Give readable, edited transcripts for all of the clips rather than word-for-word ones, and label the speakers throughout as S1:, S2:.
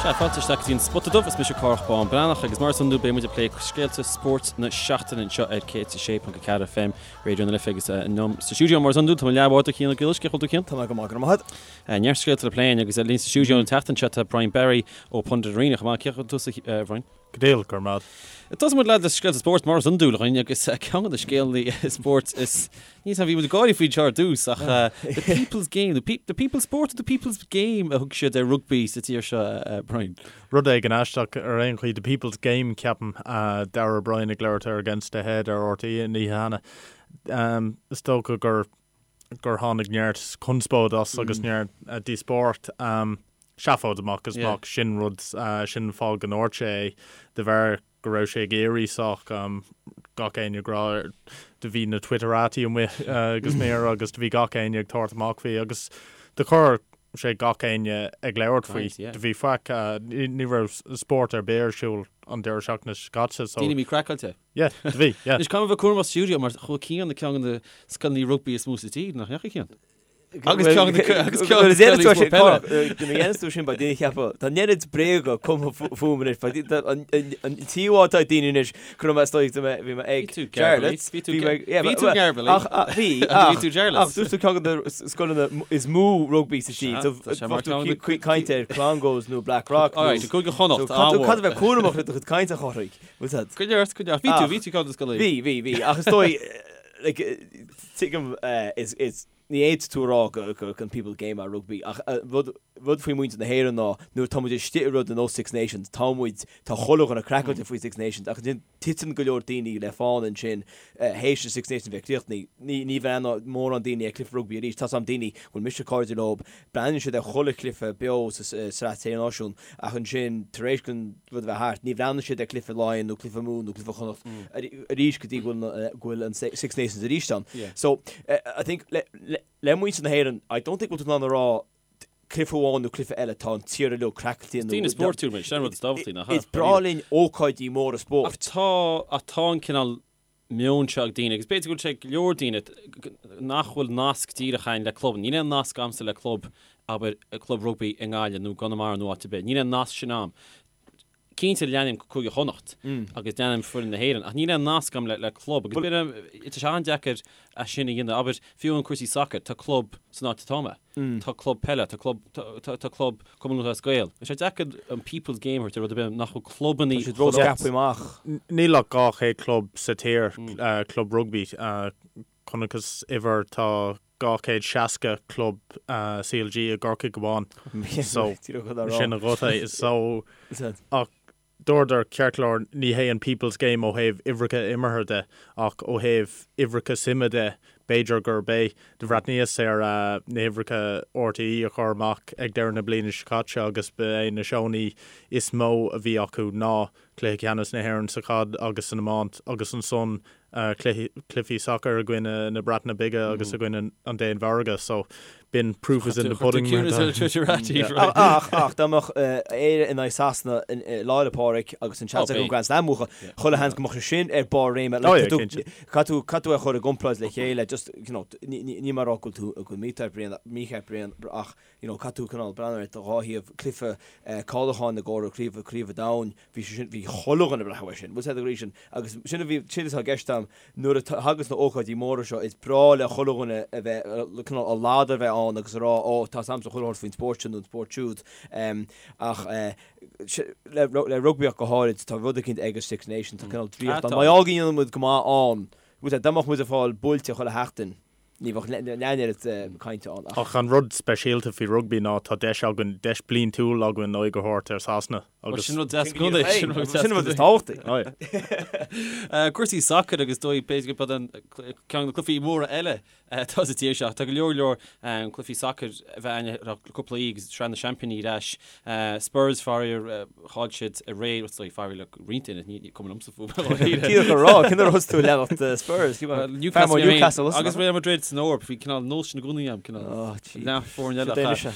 S1: Sea, fáilte isteach go dtí an Spota Dubh, is mise Cárthach Bán Breathnach agus mar is iondúil beidh muid ag plé scéalta spóirt na seachtaine anseo ar 106.4 FM, Raidió na Life agus liom sa stiúideo mar is iondúil tá mo leathbhádóir Cian Ó Griallais, cén chaoi a bhfuil tú Cian?
S2: Tá mé go maith, go raibh maith agat.
S1: Neart scéalta le plé againn agus linn sa stiúideo an tseachtain seo tá Brian Barry ó Pundit Arena chomh maith. Cén chaoi a bhfuil tusa a Bhrian?
S3: Go diail, go raibh maith
S1: agat. Tosóidh muid le scéalta spóirt mar is iondúil againn agus ceann de na scéalta spóirt is níl bhí muid ag gáirí faoi seo ar dtús ach the people's game, the people's sport or the people's game a thug siad ar rugbaí sa tír seo, Brian.
S3: Rud éigin aisteach ar aon chaoi, the people's game ceapaim, Darragh O'Brien ag labhairt ar Against the Head ar RTÉ an oíche cheana. Is dócha gur gur tháinig neart conspóid as agus neart díospóireacht. Seafóid amach is amach, sin rud, sin an fáth go ndúirt sé é, de bharr go raibh sé ag éirí sách gach éinne ag rá, do bhí na Twitterati amuigh go smior agus do bhí gach éinne ag tabhairt amach faoi agus do chuir sé gach éinne ag labhairt faoi. Do bhí faic, ní raibh spórt ar bith ar siúl an deireadh seachtaine seo caite
S1: so. Daoine míchraiceáilte.
S3: Yeah, do bhí, yeah.
S1: Anois, caithfidh mé a bheith cúramach sa stiúideo mar chuaigh Cian ag ceann de na scoileanna rugbaí is mó sa tír, nach ndeachaigh Cian? Agus ceann de agus ceann de na scoileanna is mó peile.
S2: Nuair a dhéanas tú sin, beidh daoine ag ceapadh, tá an oiread bréaga cumtha fúm anois, beidh an t-íomhá atá ag daoine anois, go raibh mé istigh, bhí mé ag
S1: Bhí tú Jarlath. Bhí tú bhí tú Garbally.
S2: Ach bhí, ach bhí tú Jarlath. Ach dúirt tú ceann de na scoileanna is mó rugbaí sa tír, so bheadh tú ag caint ar Clongowes nó Blackrock nó.
S1: Alright, Cúige Chonnacht,
S2: ádh mór. Caithfidh tú bheith cúramach le do chuid cainte a Chárthaigh.
S1: Bhfuil tú? Go neart, go neart. Bhí tú, bhí tú ceann de scoileanna.
S2: Bhí, bhí, bhí. Ach is dóigh, like, tuigim, is, is, ní fhéadfaidh tú a rá go, go, an people game é rugbaí, ach rud, rud faoi muintir na hÉireann ná nuair atá muid istigh i rud ar nós Six Nations, tá muid, tá chuile dhuine craiceáilte faoi Six Nations, ach ansin titeann go leor daoine le fána ansin théis an Six Nations bheith críochnaithe. Ní, ní bhreathnóidh mórán daoine ar cluiche rugbaí arís. Tá's a'm daoine, bhfuil mise cairde leo, Breathnaíonn siad ar chuile chluiche beo sa Sraith Sé Náisiún ach ansin tar éis don rud a bheith thart, ní bhreathnaíonn siad ar chluiche Laighean nó cluiche Mumhan nó cluiche Chonnacht arís go dtí go bhfuil an Six Nations arís ann. So, I think le muintir na hÉireann, I don't think go bhfuil tú in ann a rá cluiche amháin nó cluiche eile, tá an tír uilig craiceáilte
S1: nó. Daoine spóirtiúil muid, sin an rud is tábhachtaí, nach
S2: ea? Is breá linn ócáidí móra spóirt.
S1: Ach tá, ach tá an cineál meon seo ag daoine, agus b'fhéidir go bhfuil sé ag go leor daoine, nach bhfuil nasc díreach againn le club. Níl aon nasc agamsa le club, abair, club rugbaí i nGaillimh nó i gConamara nó áit ar bith. Níl aon nasc sin agam. Cinnte leanaim Cúige Chonnacht agus leanaim foireann na hÉireann, ach níl aon nasc agam le club agus b'fhéidir tá sé an-deacair é sin a dhéanamh. Abair, fiú amháin cúrsaí sacair, tá club san áit atá mé. Tá club peile, tá club, tá club Cumann Lúthchleas Gael. Tá sé deacair an people's game a thabhairt ar rud ar bith nach bhfuil clubannaí
S2: Tá siad ró-scaipthe amach.
S3: Níl ach 200 club sa tír, club rugbaí. Chonacthas uimhir, tá 260 club CLG i gCorcaigh amháin. So, sin an rud é. So, ach Dúradar, ceart go leor, ní hé an people's game ó thaobh uimhreacha imeartha de, ach ó thaobh uimhreacha suime de, b'fhéidir gurb é. Do bhreathnaíos ar na huimhreacha RTÉ a chuir amach ag deireadh na bliana seo caite agus ba é na seónna is mó a bhí acu ná Cluiche Ceannais na hÉireann sa chaid agus san iomáint agus ansan cluichí sacair i gcoinne na Breataine Bige agus i gcoinne an Danmhairge so b'in proof is in the pudding mar
S2: atá. Ach, ach, dá mbeadh Éire in aghaidh Sasana Lá 'le Pádraig agus an seans acu an Grand Slam a bhuachan, chuile sheans go mbeadh sé sin ar barr réime. Caithfidh tú, caithfidh tú é a chur i gcomparáid le chéile, just, you know, níl mé ag rá go bhfuil tú, go bhfuil mícheart Brian, mícheart Brian ach, you know, caithfidh tú cineál breathnú ar dhá thaobh, cluiche cáiliúcháin i gcomhair craobh, craobh an domhain, Bhí sé sin, bhí chuile dhuine ag breathnú air sin, bhfuil a fhios agat sin, agus sin a bhí, sin atá i gceist agam, nuair a thagas na ócáidí móra seo, is breá le chuile dhuine a bheith, cineál a ladar a bheith ann agus a rá, ó, tá a fhios agamsa chuile shórt faoin spórt sin nó an spórt siúd. Ach le, le rugbaí ach go háirid, tá rud eicínt ag an Six Nations, tá cineál draíocht ann. Má go ndéanann muid go maith ann, bhfuil a fhios agat, dá mbeadh muid ag fáil buailte chuile sheachtain, Ní bheadh leath an oiread cainte ann
S3: ach. Ach an rud speisialta faoi rugbaí ná tá deis againn, deis bliantúil againn aghaidh a thabhairt ar Sasana
S1: agus. Sin rud deas i gcónaí.
S2: Sin rud is tábhachtaí.
S1: Cúrsaí sacair agus dóigh b'fhéidir gurb an ceann de na cluichí móra eile atá sa tír seo. Tá go leor leor cluichí sacair a bheith ann le cúpla oíche agus Sraith na Seaimpíní ar ais. Spurs, faraor, chaill siad aréir, is dóigh, faraor le roinnt duine, ní cuma liomsa
S2: fúm. Díreach a rá, cén uair a thosaigh tú ag leanacht Spurs?
S1: Newcastle, Newcastle, agus Real Madrid san Eoraip, bhí cineál nós sin i gcónaí agam, cineál leath foirne eile.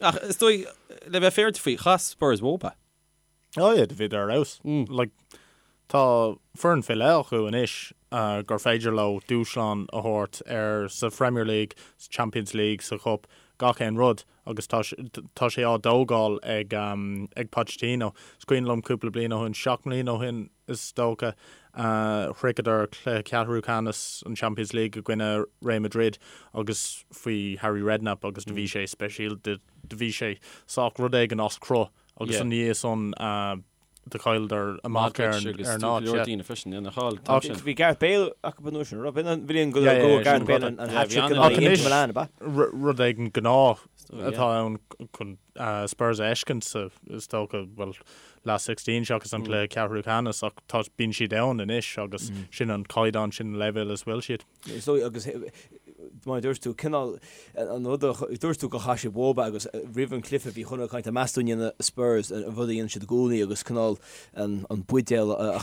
S1: Ach is dóigh, le bheith féaráilte faoi, chaith Spurs uathu.
S3: Oh yeah, do bhíodar ar fheabhas. Like, tá foireann faoi leith acu anois gur féidir leo dúshlán a thabhairt ar sa Premier League, sa Champions League, sa Chup. gach aon rud agus tá tá sé á dtógáil ag ag Pochettino. Is cuimhin liom cúpla bliain ó shin, 7 mbliana ó shin is dócha, shroicheadar cluiche ceathrú ceannais an Champions League i gcoinne Real Madrid agus faoi Harry Redknapp agus do bhí sé speisialta, do bhí sé sách rud éigin as cruth agus ina dhiaidh san do chailleadar amach ar
S1: an
S3: ar an áit.
S1: Leor daoine freisin, ina cháil an t-am sin.
S2: Bhí Gareth Bale acu an uair sin, raibh? An bhliain go raibh Gareth Bale an hat-trick in aghaidh Inter Milan, ab
S3: ea? Rud éigin gnáth atá ann chun Spurs a fheiscint sa, is dócha, bhuel, last 16 seachas an cluiche ceathrú ceannais ach tá, bíonn siad ann anois agus sin an caighdeán, sin an leibhéal is bhfuil siad.
S2: Is dóigh agus mar a dúirt tú, cineál an rud a dúirt tú gur chaith siad uathu agus roimh an chluiche bhí chuile dhuine ag caint meas tú an ndéanfaidh Spurs an rud a dhéanann siad i gcónaí agus cineál an buidéal a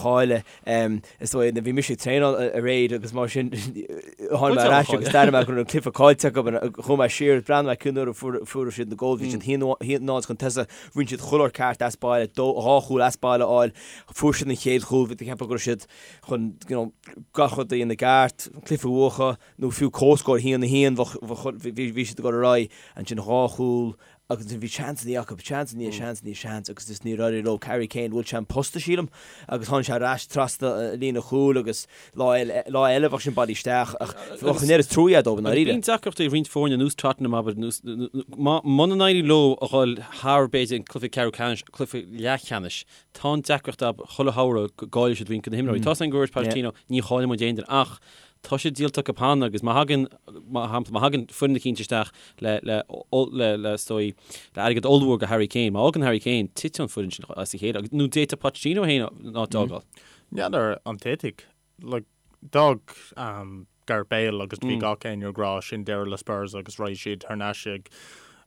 S2: chailleadh. Is dóigh bhí mise ag traenáil aréir agus mar sin tháinig mé ar ais agus d'airigh mé go raibh an cluiche caillte acu chuaigh mé siar breathnaigh mé cén uair a fuair siad na góil bhí siad 1-0 chun tosaigh rinne siad chuile shórt ceart as baile dhá chúl as baile a fháil fuair siad an chéad chúl bhí tú ag ceapadh go raibh siad chun you know, gach rud a dhéanamh i gceart, an cluiche a bhuachan, nó fiú comhscór 1-1, bhí siad ag dul ar aghaidh, ansin dhá chúl, agus ansin bhí seansanna acu, seans i ndiaidh seans i ndiaidh seans, agus just níor éirigh leo. Harry Kane, bhuail sé an posta, sílim, agus tháinig sé ar ais trasna líne chúil agus lá eile, lá eile bheadh sin bailithe isteach, ach bheadh an oiread trua dóibh i
S1: ndáiríre. Bíonn deacrachtaí ag roinnt foirne ar nós Tottenham, abair, nós, muna n-éiríonn leo a dhul thar, b'fhéidir, an cluiche ceathrú ceannais, cluiche leathcheannais, Tá an deacracht acu chuile shamhradh go gcaillfidh siad roinnt de na himreoirí. Tá a fhios againn gur dúirt Pochettino, ní chaillfidh muid aon duine ach tá sé díolta acu cheana agus má thagann, mar shampla, má thagann foireann eicínt isteach le, le, le, le, is dóigh, le airgead ollmhór do Harry Kane, má fhágann Harry Kane, titeann an foireann sin as a chéile agus, nó d'fhéadfadh Pochettino féin an áit a fhágáil.
S3: N'fheadar an dtitfidh. Like, d'fhág Gareth Bale agus bhí gach éinne ag rá sin deireadh le Spurs agus raghaidh siad thar n-ais ag,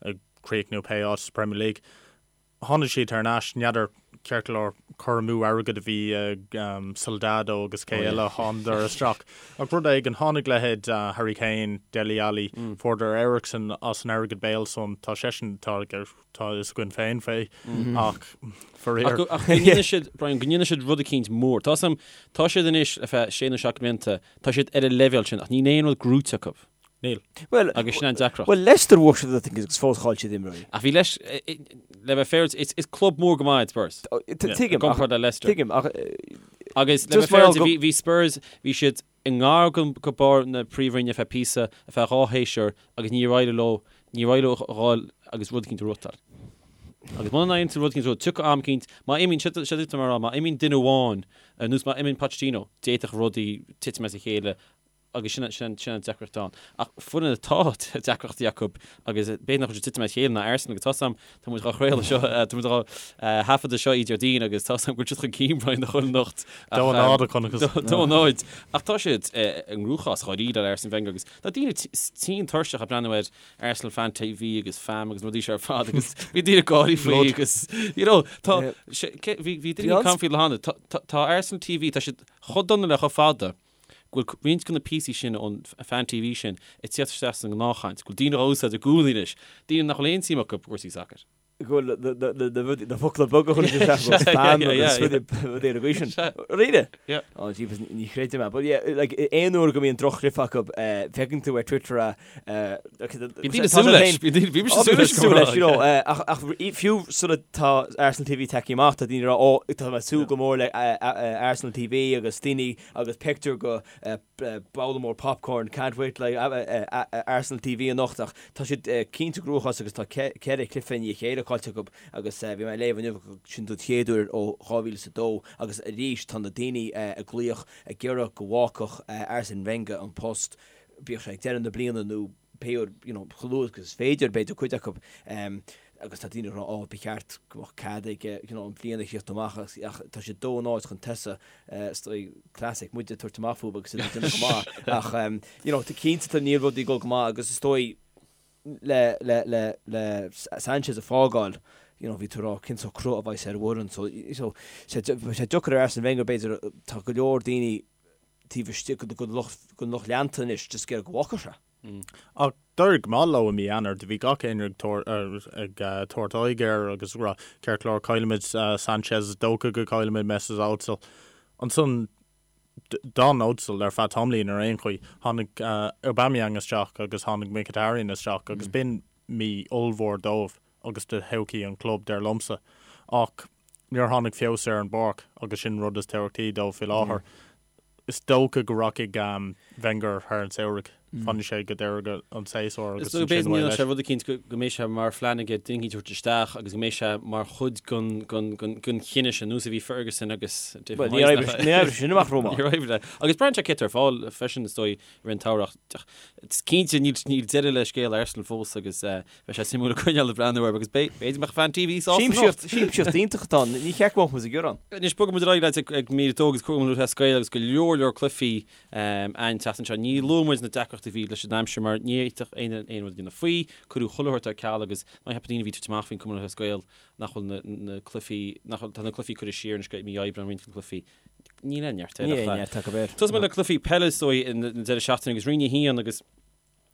S3: ag críochnú pé áit sa Premier League. Tháinig siad thar n-ais, n'fheadar ceart go leor cur amú airgid a bhí ag Soldado agus cé eile a thánadar isteach. Ach rud éigin, tháinig leithéid Harry Kane, Dele Alli, fuaireadar Eriksen as an airgead Bale san, tá seisean, tá tá a fhios againn féin fé ach
S1: faraor. Ach go ndéanfaidh siad, Brian, go ndéanfaidh siad rud eicínt mór. Tá 'fhios a'm, tá siad anois le feadh sé nó seacht mblianta, tá siad ar an leibhéal sin ach níl aon rud gnóite acu.
S3: Níl.
S2: Bhuel,
S1: Agus sin an deacracht.
S2: Bhuel, Leicester bhuaigh siad I think agus fós chaill siad imreoirí.
S1: Ach bhí Leicester, le bheith féaráilte, is, is club mór go maith iad Spurs.
S2: Tuigim,
S1: I gcomparáid le Leicester.
S2: Tuigim, ach...
S1: Agus le
S2: Just
S1: bheith
S2: mar
S1: féaráilte,
S2: go-
S1: bhí, bhí Spurs, bhí siad i ngar go, go barr na príomhroinne ar feadh píosa, ar feadh dhá shéasúr, agus níor éirigh leo, níor éirigh leo a dhul agus rud eicínt a ghnóthachtáil. Agus muna n-éiríonn tú rud eicínt a ghnóthachtáil, tiocfaidh am eicínt, má imíonn, seo, seo duit mar a rá, má imíonn duine amháin, ar nós má imíonn Pochettino, d'fhéadfadh rudaí titim as a chéile, agus sin sin sin an deacracht ann. Ach foireann atá deacrachtaí acu agus b'fhéidir nach bhfuil siad ag titim as a chéile ná Arsenal agus tá 'fhios a'm, tá muid dhá chraoladh seo, tá muid dhá thaifeadadh seo oíche Déardaoin agus tá 'fhios a'm go bhfuil siad chun cinn Brian do chuile anocht.
S3: Dó a náid a chonacthas.
S1: Dó a náid. Ach tá siad i gcruachás dháiríre le Arsene Wenger agus tá daoine tinn tuirseach ag breathnú ar Arsenal Fan TV agus FAM agus na rudaí seo ar fad agus bhí daoine ag gáirí faoi agus you know tá bhí bhí daoine ag caint faoi le hana tá Arsenal TV tá siad chomh dona le chomh fada go bhfuil roinnt de na píosaí sin ón Fan TV sin ag tíocht isteach sa ngnáthchaint, go bhfuil daoine á úsáid i gcónaí anois, daoine nach bhfuil aon suim acu i gcúrsaí sacair.
S2: go bhfuil na focla beaga chun isteach go spam agus rudaí ar an gcaoi sin. Really?
S1: Yeah.
S2: Oh jeepers, ní chreidim é. But yeah, like, aon uair go mbíonn droch-chluiche acu, feiceann tú ar Twitter a
S1: Bíonn daoine súil leis, bhí mise súil leis,
S2: súil leis, you know, ach fiú sula tá Arsenal TV tagtha amach, tá daoine ag rá, ó, tá mé ag súil go mór le Arsenal TV agus daoine agus pictiúr go babhla mór popcorn, can't wait like Arsenal TV anocht ach tá siad cinnte i gcruachás agus tá ceithre chluiche i ndiaidh a chéile caillte acu agus bhí mé ag léamh inniu go sin don chéad uair ó 2002 agus arís tá na daoine ag glaoch ag iarraidh go bhfágfadh Arsene Wenger an post bíodh sé ag deireadh na bliana nó pé uair you know chomh luath agus is féidir b'fhéidir cuid acu agus tá daoine ag rá oh ba cheart go mbeadh cead aige you know an bhliain a chríochnú amach ach ach tá siad dó náid chun tosaigh is dóigh classic muid ag tabhairt amach fúthu agus iad ag déanamh go maith ach you know tá cinnte tá níl rudaí ag dul go maith agus is dóigh le le le le Sanchez a fágáil you know bhí tú ag rá cén sórt cruth a bheas ar an bhfoireann so so sé sé deacair ar Arsene Wenger b'fhéidir tá go leor daoine taobh istigh den lucht den lucht leanta anois just ag iarraidh go bhfágfadh sé.
S3: Ach d'éirigh go maith leo i mí Eanáir. Do bhí gach éinne ag tabhairt aghaidh air agus ag rá, ceart go leor, caillfimid Sanchez, is dócha go gcaillfimid Mesut Ozil. Ansan. D'fhan Ozil ar feadh tamaillín ar aon chaoi. Tháinig Aubameyang isteach agus tháinig Mkhitaryan isteach agus b'in mí ollmhór dóibh agus do thodhchaí an chlub, dar liomsa. Ach níor tháinig feabhas ar an bpáirc agus sin an rud is tábhachtaí dóibh faoi láthair. Is dócha go rachaidh Wenger thar an samhradh. Fanfaidh sé go deireadh an tséasúir
S1: agus ansin away leis. Is rud eicínt go mbeidh sé mar phlean aige duine eicínt a thabhairt isteach agus go mbeidh sé mar chuid den chinneadh sin, nós a bhí Ferguson agus
S2: David Moyes. Ní oibreoidh sin amach
S1: rómhaith. Níor oibrigh. Agus braitheann sé cé atá ar fáil freisin is dóigh i rith an tsamhraidh. Is cinnte níl deireadh le scéal Arsenal fós agus Beidh sé suimiúil ag coinneáil ag breathnú air agus b'fhéidir go mbeadh fan TV sásta
S2: anocht. Siamsaíocht iontach atá ann, ní cheart go mbeadh muid ag gearán.
S1: Anois bogfaidh muid ar aghaidh leat ag mír 2 agus Cumann Lúthchleas Gael agus go leor leor cluichí an tseachtain seo. Ní luafaidh muid na deacrachtaí a bhí leis an aimsir mar ní fhéadfadh éinne aon rud a dhéanamh faoi. Cuireadh chuile shórt ar ceal agus ná ceapfadh daoine a bhí ag tabhairt amach faoin Cumann Lúthchleas Gael nach bhfuil na cluichí, nach bhfuil, tá na cluichí curtha siar anois go mí Aibreáin roinnt de na cluichí. Níl aon neart air.
S2: Níl aon neart acu
S1: air. Tosóidh muid le cluichí peile is dóigh an deireadh seachtaine agus Roinn 1 agus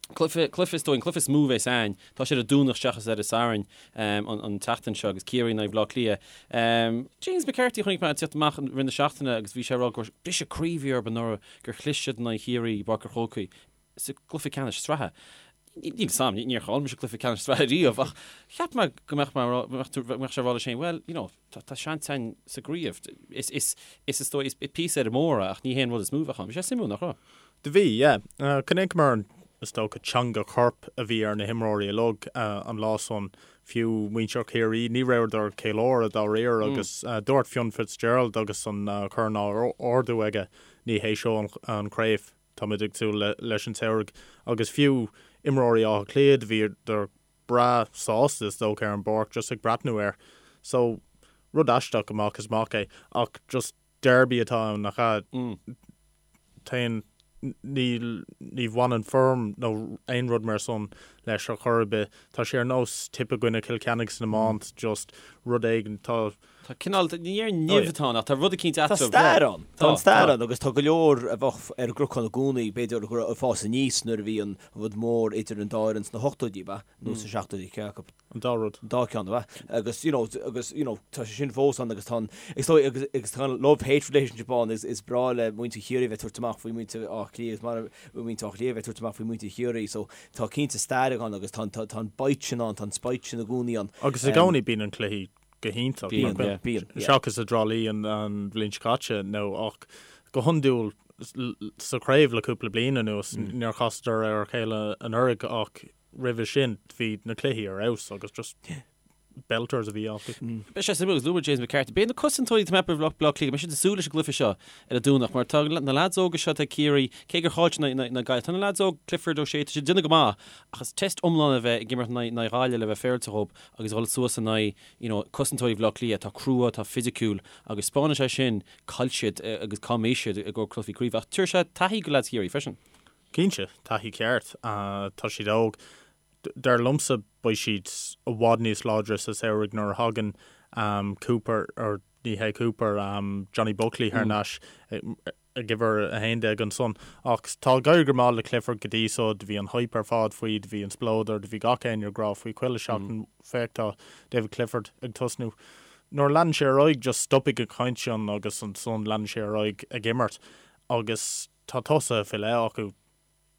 S1: Cluiche, cluiche is dóigh, an cluiche is mó a bheas ann. Tá sé ar an Domhnach seachas ar an Satharn an tseachtain seo agus Ciarraí in aghaidh Bhaile Átha Cliath. James McCarthy a chonaic mé ag tíocht amach i rith na seachtaine agus bhí sé ag rá gur briseadh croí a bhí orthu anuraidh gur chlis siad in aghaidh Chiarraí i bPáirc an Chrócaigh sa gcluiche ceannais sraithe. Níl a fhios agam, níor chaill mise cluiche ceannais sraithe riamh ach cheap mé go mbeadh mé go mbeadh sé ag rá leis féin, well, you know, tá seans againn sa gcraobh. Is, is, is is dóigh, is píosa ar an mór é ach ní hé an rud is mó a bheadh ann. Bhí sé suimiúil, nach raibh?
S3: Do bhí, yeah. Chonaiceamar an, is dócha, teanga choirp a bhí ar na himreoirí uilig an lá san. Fiú muintir Chiarraí, ní rabhadar ag ceiliúradh dáiríre agus dúirt Fionn Fitzgerald agus an corn á ardú aige, ní hé seo an chraobh, táimid ag súil leis an samhradh. Agus fiú imreoirí Átha Cliath, bhíodar breá sásta is dócha ar an bpáirc just ag breathnú air. So, rud aisteach amach is amach é ach just derby atá ann, nach ea? Téann, níl, ní bhaineann form nó aon rud mar san leis ar chor ar bith. Tá sé ar nós Tipp i gcoinne Chill Chainnigh san iomáint, just rud éigin,
S1: tá. Tá cineál, ní ar nimh atá ann ach tá rud eicínt
S2: Tá eatarthu. stair ann. Tá an stair ann agus tá go leor a bheadh ar an gcnocán i gcónaí, b'fhéidir, go raibh ag fás aníos nuair a bhí an rud mór idir an dá fhoireann sna hochtóidí, ab ea? Nó sna seachtóidí, cé
S3: acu? An dá rud.
S2: An dá ceann, ab ea? Agus, you know, agus, you know, tá sé sin fós ann agus tá an, is dóigh, agus, agus tá an love-hate relationship ann, is, is breá le muintir Chiarraí a bheith ag tabhairt amach faoi muintir Átha Cliath agus mar muintir Átha Cliath a bheith ag tabhairt amach faoi muintir Chiarraí, so tá cinnte stair ann agus tá an, tá, tá an bite sin ann, tá an spite sin i gcónaí ann.
S3: Agus i gcónaí bíonn an cluichí go hiontach.
S1: Bíonn, yeah,
S3: bíonn, yeah. Seachas i dTrá Lí an, an bhliain seo caite, nó ach go hiondúil sa chraobh le cúpla bliain anuas, níor chasadar ar a chéile anuraidh ach roimhe sin bhí na cluichí ar fheabhas agus just belters a bhí acu.
S1: Beidh sé suimiúil agus luaigh James McCarthy. Beidh na cosantóirí atá ag Baile Átha Cliath, beidh siad ag súil leis an gcluiche seo ar an Domhnach mar tá na leaids óga seo atá ag Ciarraí, cé gur chaill siad in aghaidh na Gaillimhe, tá na leaids óg, Clifford, O'Shea, tá siad ag déanamh go maith ach is test iomlán a bheith ag imirt in aghaidh Ghaillimh le bheith féaráilte dhóibh agus a dhul suas in aghaidh you know, cosantóirí Bhaile Átha Cliath atá crua, atá fisiciúil agus spáineann sé sin cá bhfuil siad agus cá mbeidh siad i gcomhair cluichí craoibhe ach tabharfaidh sé taithí go leaids Chiarraí freisin.
S3: Cinnte, taithí ceart. Tá siad óg. Dar liomsa beidh siad i bhfad níos láidre sa samhradh nuair a thagann Cooper, or ní hé Cooper, Johnny Buckley thar n-ais ag uimhir 11 ansan. Ach tá ag éirí go maith le Clifford go dtí so. Do bhí an hype ar fad faoi, do bhí an spleodar, do bhí gach éinne ag rá faoi chuile seachtain, féach tá David Clifford ag tosnú. Nuair a leanann sé ar aghaidh just stopfaidh an chaint sin agus ansan leanann sé ar aghaidh ag imirt agus Tá tosaithe faoi leith acu.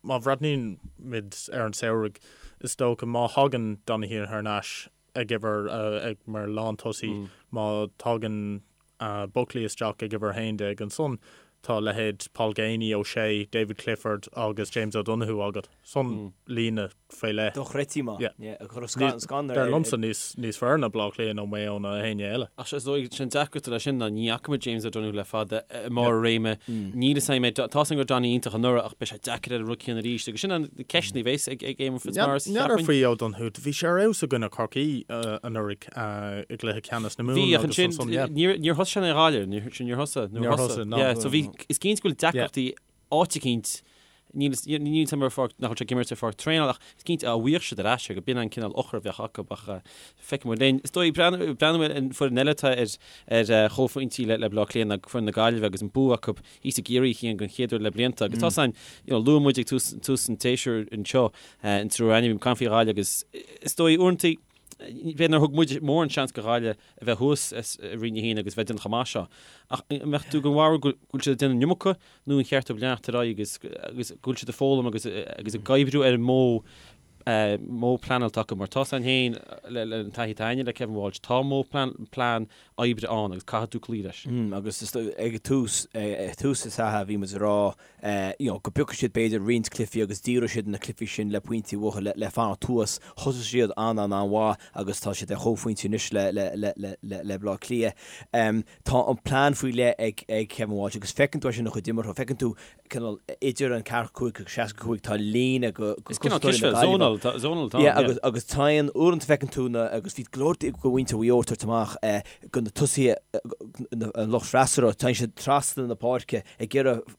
S3: Má bhreathnaíonn muid ar an samhradh, is dócha, má thagann Donoghue thar n-ais ag uimhir, ag, mar lántosaí, má thagann Buckley isteach ag uimhir 11, ansan tá leithéid Paul Geaney, O'Shea, David Clifford agus James O'Donoghue agat. San líne faoi leith.
S2: Dochreidte maith.
S3: Yeah. Yeah, ag cur scanradh Dar liomsa níos, níos fearr ná Baile Átha Cliath nó Maigh Eo nó éinne eile.
S1: Ach is dóigh, sin deacracht leis sin ná ní fhaca muid James O'Donoghue le fada i mbarr a réime. Níl a fhios agam é, tá a fhios agam go raibh Donny iontach anuraidh ach beidh sé deacair air an rud céanna arís agus sin an ceist a bheas ag ag Éamonn Fitzmaurice,
S3: N'fheadar cheapfainn. faoi O'Donoghue, bhí sé ar fheabhas i gcoinne Chorcaí anuraidh i gcluiche ceannais na
S1: Mumhan Bhí, ach agus ansin ansan, yeah. níor níor thosaigh sé in aghaidh Ghaillimh, níor sin níor thosaigh,
S3: níor Níor thosaigh,
S1: no. Yeah, so bhí, is cinnte go bhfuil deacrachtaí áit eicínt, níl a fhios agam ar pháirc, nach bhfuil sé ag imirt ar pháirc traenála ach is cinnte dá bhfaigheadh siad ar ais é go b'in an cineál eochair a bheadh acu ach feicfidh muid linn. Is dóigh, breathnú ar an foireann eile atá ar ar chomhphointí le Baile Átha Cliath ná foireann na Gaillimhe agus an bua acu thíos i gCiarraí a Chian den chéad uair le blianta agus tá san, you know, luaigh muid ag tús tús an tséasúir anseo an triúr againn, bhí caint faoi Ghaillimh agus is dóigh uaireanta. B'fhéidir nár thug muid mórán seans do Ghaillimh a bheith thuas i Roinn 1 agus bheith ag déanamh chomh maith seo. Ach an mbeadh tú den bharúil go bhfuil siad ag déanamh an iomarca nó an cheart dóibh leanacht ar aghaidh agus agus go bhfuil siad ag foghlaim agus agus ag oibriú ar an modh modh pleanáilte acu mar tá san féin le le an taithí atá againne le Kevin Walsh tá modh plean plean oibre ann agus caithfidh tú cloí leis.
S2: Agus is ag tús ag tús na sraithe bhí muid ag rá you know go bpiocfadh siad b'fhéidir roinnt cluichí agus díreoidh siad na cluichí sin le pointí uathu le le fanacht thuas. Thosaigh siad an an an-mhaith agus tá siad ar chomhphointí anois le le le le le le Baile Átha Cliath. Tá an plean faoi leith ag ag Kevin Walsh agus feiceann tú é sin ina chuid imeartha, feiceann tú cineál idir an 45 agus 65 tá líne go
S1: Is cineál cispheil, zonal, zonal atá ann,
S2: yeah. Agus agus téann, uaireanta feiceann tú na, agus bhí go leor de mhuintir Mhaigh Eo ag tabhairt amach go na tosaithe, an lucht freasúra, téann siad trasna na páirce ag iarraidh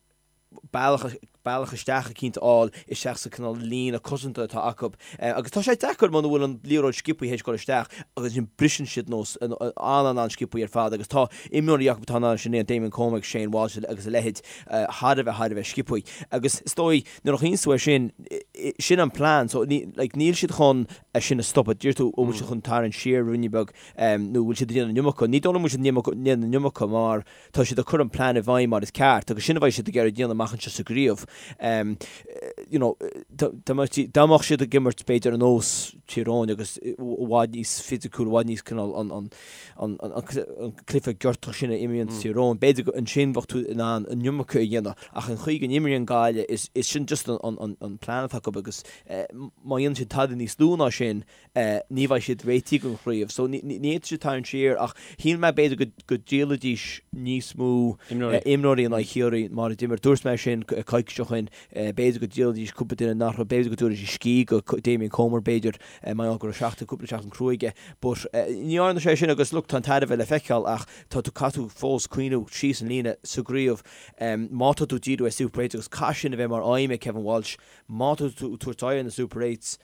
S2: bealach bealach isteach eicínt a fháil isteach sa cineál líne cosanta atá acu. Agus tá sé deacair muna bhfuil an liathróid sciobthaí théis dul isteach agus ansin briseann siad nós an-an-an-sciobthaí ar fad agus tá imreoirí acu atá in ann sin a dhéanamh, Damien Comer agus Shane Walsh agus a leithéid thar a bheith thar a bheith sciobthaí. Agus is dóigh nuair a chuimhníonn tú air sin, sin an plean so like níl siad chun é sin a stopadh. Deir tú an bhfuil siad chun tarraingt siar ruainne beag nó bhfuil siad ag déanamh an iomarca. Ní dóigh liom go bhfuil siad ag déanamh an iomarca mar Tá siad ag cur an plean i bhfeidhm mar is ceart agus sin a bheidh siad ag iarraidh déanamh amach anseo sa gcraobh. You know, dá mbeadh siad ag imirt b'fhéidir ar nós Tír Eoghain agus i bhfad níos fisiciúil, i bhfad níos cineál an an an an cluiche giortach sin a imríonn Tír Eoghain, b'fhéidir go ansin bheadh tú in ann an iomarca a dhéanamh ach an chaoi go n-imríonn Gaillimh is is sin just an an an plean atá acu agus má dhéanann siad tada níos lú ná sin ní bheidh siad réitithe don chraobh. So ní fhéadfaidh siad tarraingt siar ach shíl mé b'fhéidir go go dtriailfidís níos mó imreoirí in aghaidh Chiarraí mar a d'imir. Dúirt mé sin coicís ó shin. B'fhéidir go dtriailfidís cúpla duine nach raibh, b'fhéidir go dtabharfaidís scíth go Damien Comer b'fhéidir mar gheall go raibh seachtain, cúpla seachtain crua aige. But ní dhearna sé sin agus look tá an tairbhe le feiceáil ach tá tú, caithfidh tú fós cuimhniú síos an líne sa gcraobh. Má tá tú ag díriú ar Super Eights agus caithfidh sin a bheith mar aidhm ag Kevin Walsh, má tá tú ag tabhairt aghaidh ar na Super Eights,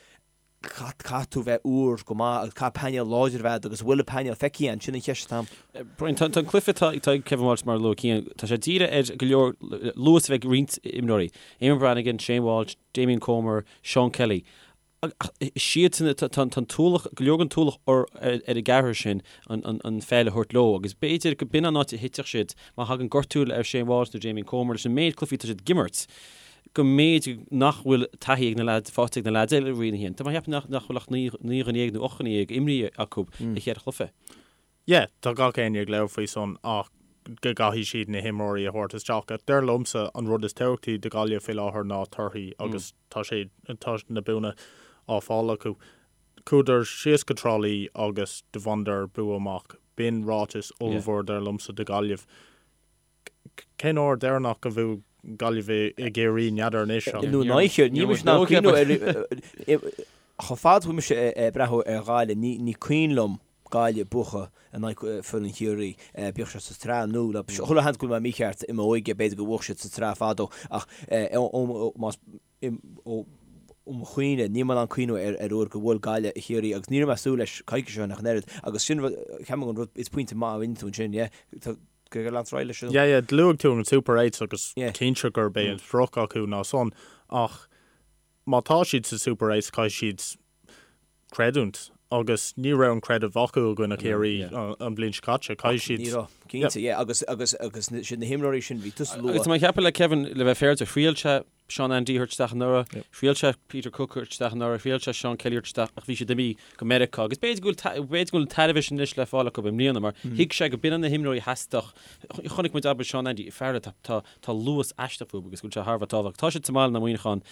S2: Caithfidh tú bheith úr go maith agus caithfidh painéal láidir a bheith agat agus an bhfuil an painéal feicthe againn, sin an cheist atá
S1: ann. Brian, tá an cluiche atá ag Kevin Walsh mar a luaigh Cian, tá sé dírithe ar go leor luas a bheith ag roinnt imreoirí, Eamonn Brannigan, Shane Walsh, Damien Comer, Seán Kelly. Is iadsan, tá an t-ualach, go leor den t-ualach ar an gceathrar sin an pheil a thabhairt leo agus b'fhéidir go b'in an áit a thitfeadh siad má thagann gortú ar Shane Walsh nó Damien Comer leis an méid cluichí atá siad ag imirt. go mb'fhéidir nach bhfuil taithí ag na leaids, faighte ag na leaids eile i Roinn 1. Tá mé ag ceapadh nach bhfuil ach 19 dhuine nó 18 dhuine imrithe acu i cheithre chluiche.
S3: Yeah, tá gach éinne ag labhairt faoi san ach go gcaithfidh siad na himreoirí a thabhairt isteach. Ach dar liomsa an rud is tábhachtaí do Ghaillimh faoi láthair ná torthaí agus tá sé, tá na buanna á fáil acu. Chuadar síos go Trá Lí agus do bhaineadar bua amach. B'in ráiteas ollmhór dar liomsa do Ghaillimh. Cén uair deireanach a bhuaigh Gaillimh i gCiarraí? N'fheadar anois
S2: ach. Nó in aghaidh Chiarraí. Níl mise in ann cuimhniú ar Chomh fada is a bhfuil mise ag breathnú ar Ghaillimh, ní cuimhin liom Gaillimh buachan in aghaidh foireann Chiarraí, bíodh sé sa tsraith nó le chuile sheans go bhfuil mé mícheart i m'óige, b'fhéidir gur bhuaigh siad sa tsraith fadó ach más ó mo chuimhne, níl mé in ann cuimhniú ar uair gur bhuail Gaillimh Chiarraí agus ní raibh mé ag súil leis coicís ó shin ach an oiread agus sin rud, ceapaim an rud, is pointe maith a rinne tú ansin, yeah. Go leantar ar aghaidh leis
S3: sin. Yeah, yeah, luaigh tú an Super Eights agus cinnte gurb é an sprioc acu ná san ach má tá siad sa Super Eights caithfidh siad creidiúint agus ní raibh an creideamh acu i gcoinne Chiarraí an bhliain seo caite. Caithfidh siad.
S2: Ní raibh, cinnte, yeah, agus agus agus sin na himreoirí sin bhí tusa
S1: luath. Agus tá mé ag ceapadh le Kevin le bheith féaráilte, thriail sé Seán Andy a thabhairt isteach anuraidh, thriail sé Peter Cooke a thabhairt isteach anuraidh, thriail sé Seán Kelly a thabhairt isteach ach bhí siad imithe go Meiriceá agus b'fhéidir go bhfuil b'fhéidir go bhfuil an tairbhe sin anois le fáil acu i mbliana mar thuig sé go b'in na himreoirí a theastódh. Chonaic muid abair Seán Andy, fear tá tá tá luas aisteach fúthu agus go bhfuil sé thar a bheith tábhachtach. Tá siad sa mbaile in aghaidh Mhuineacháin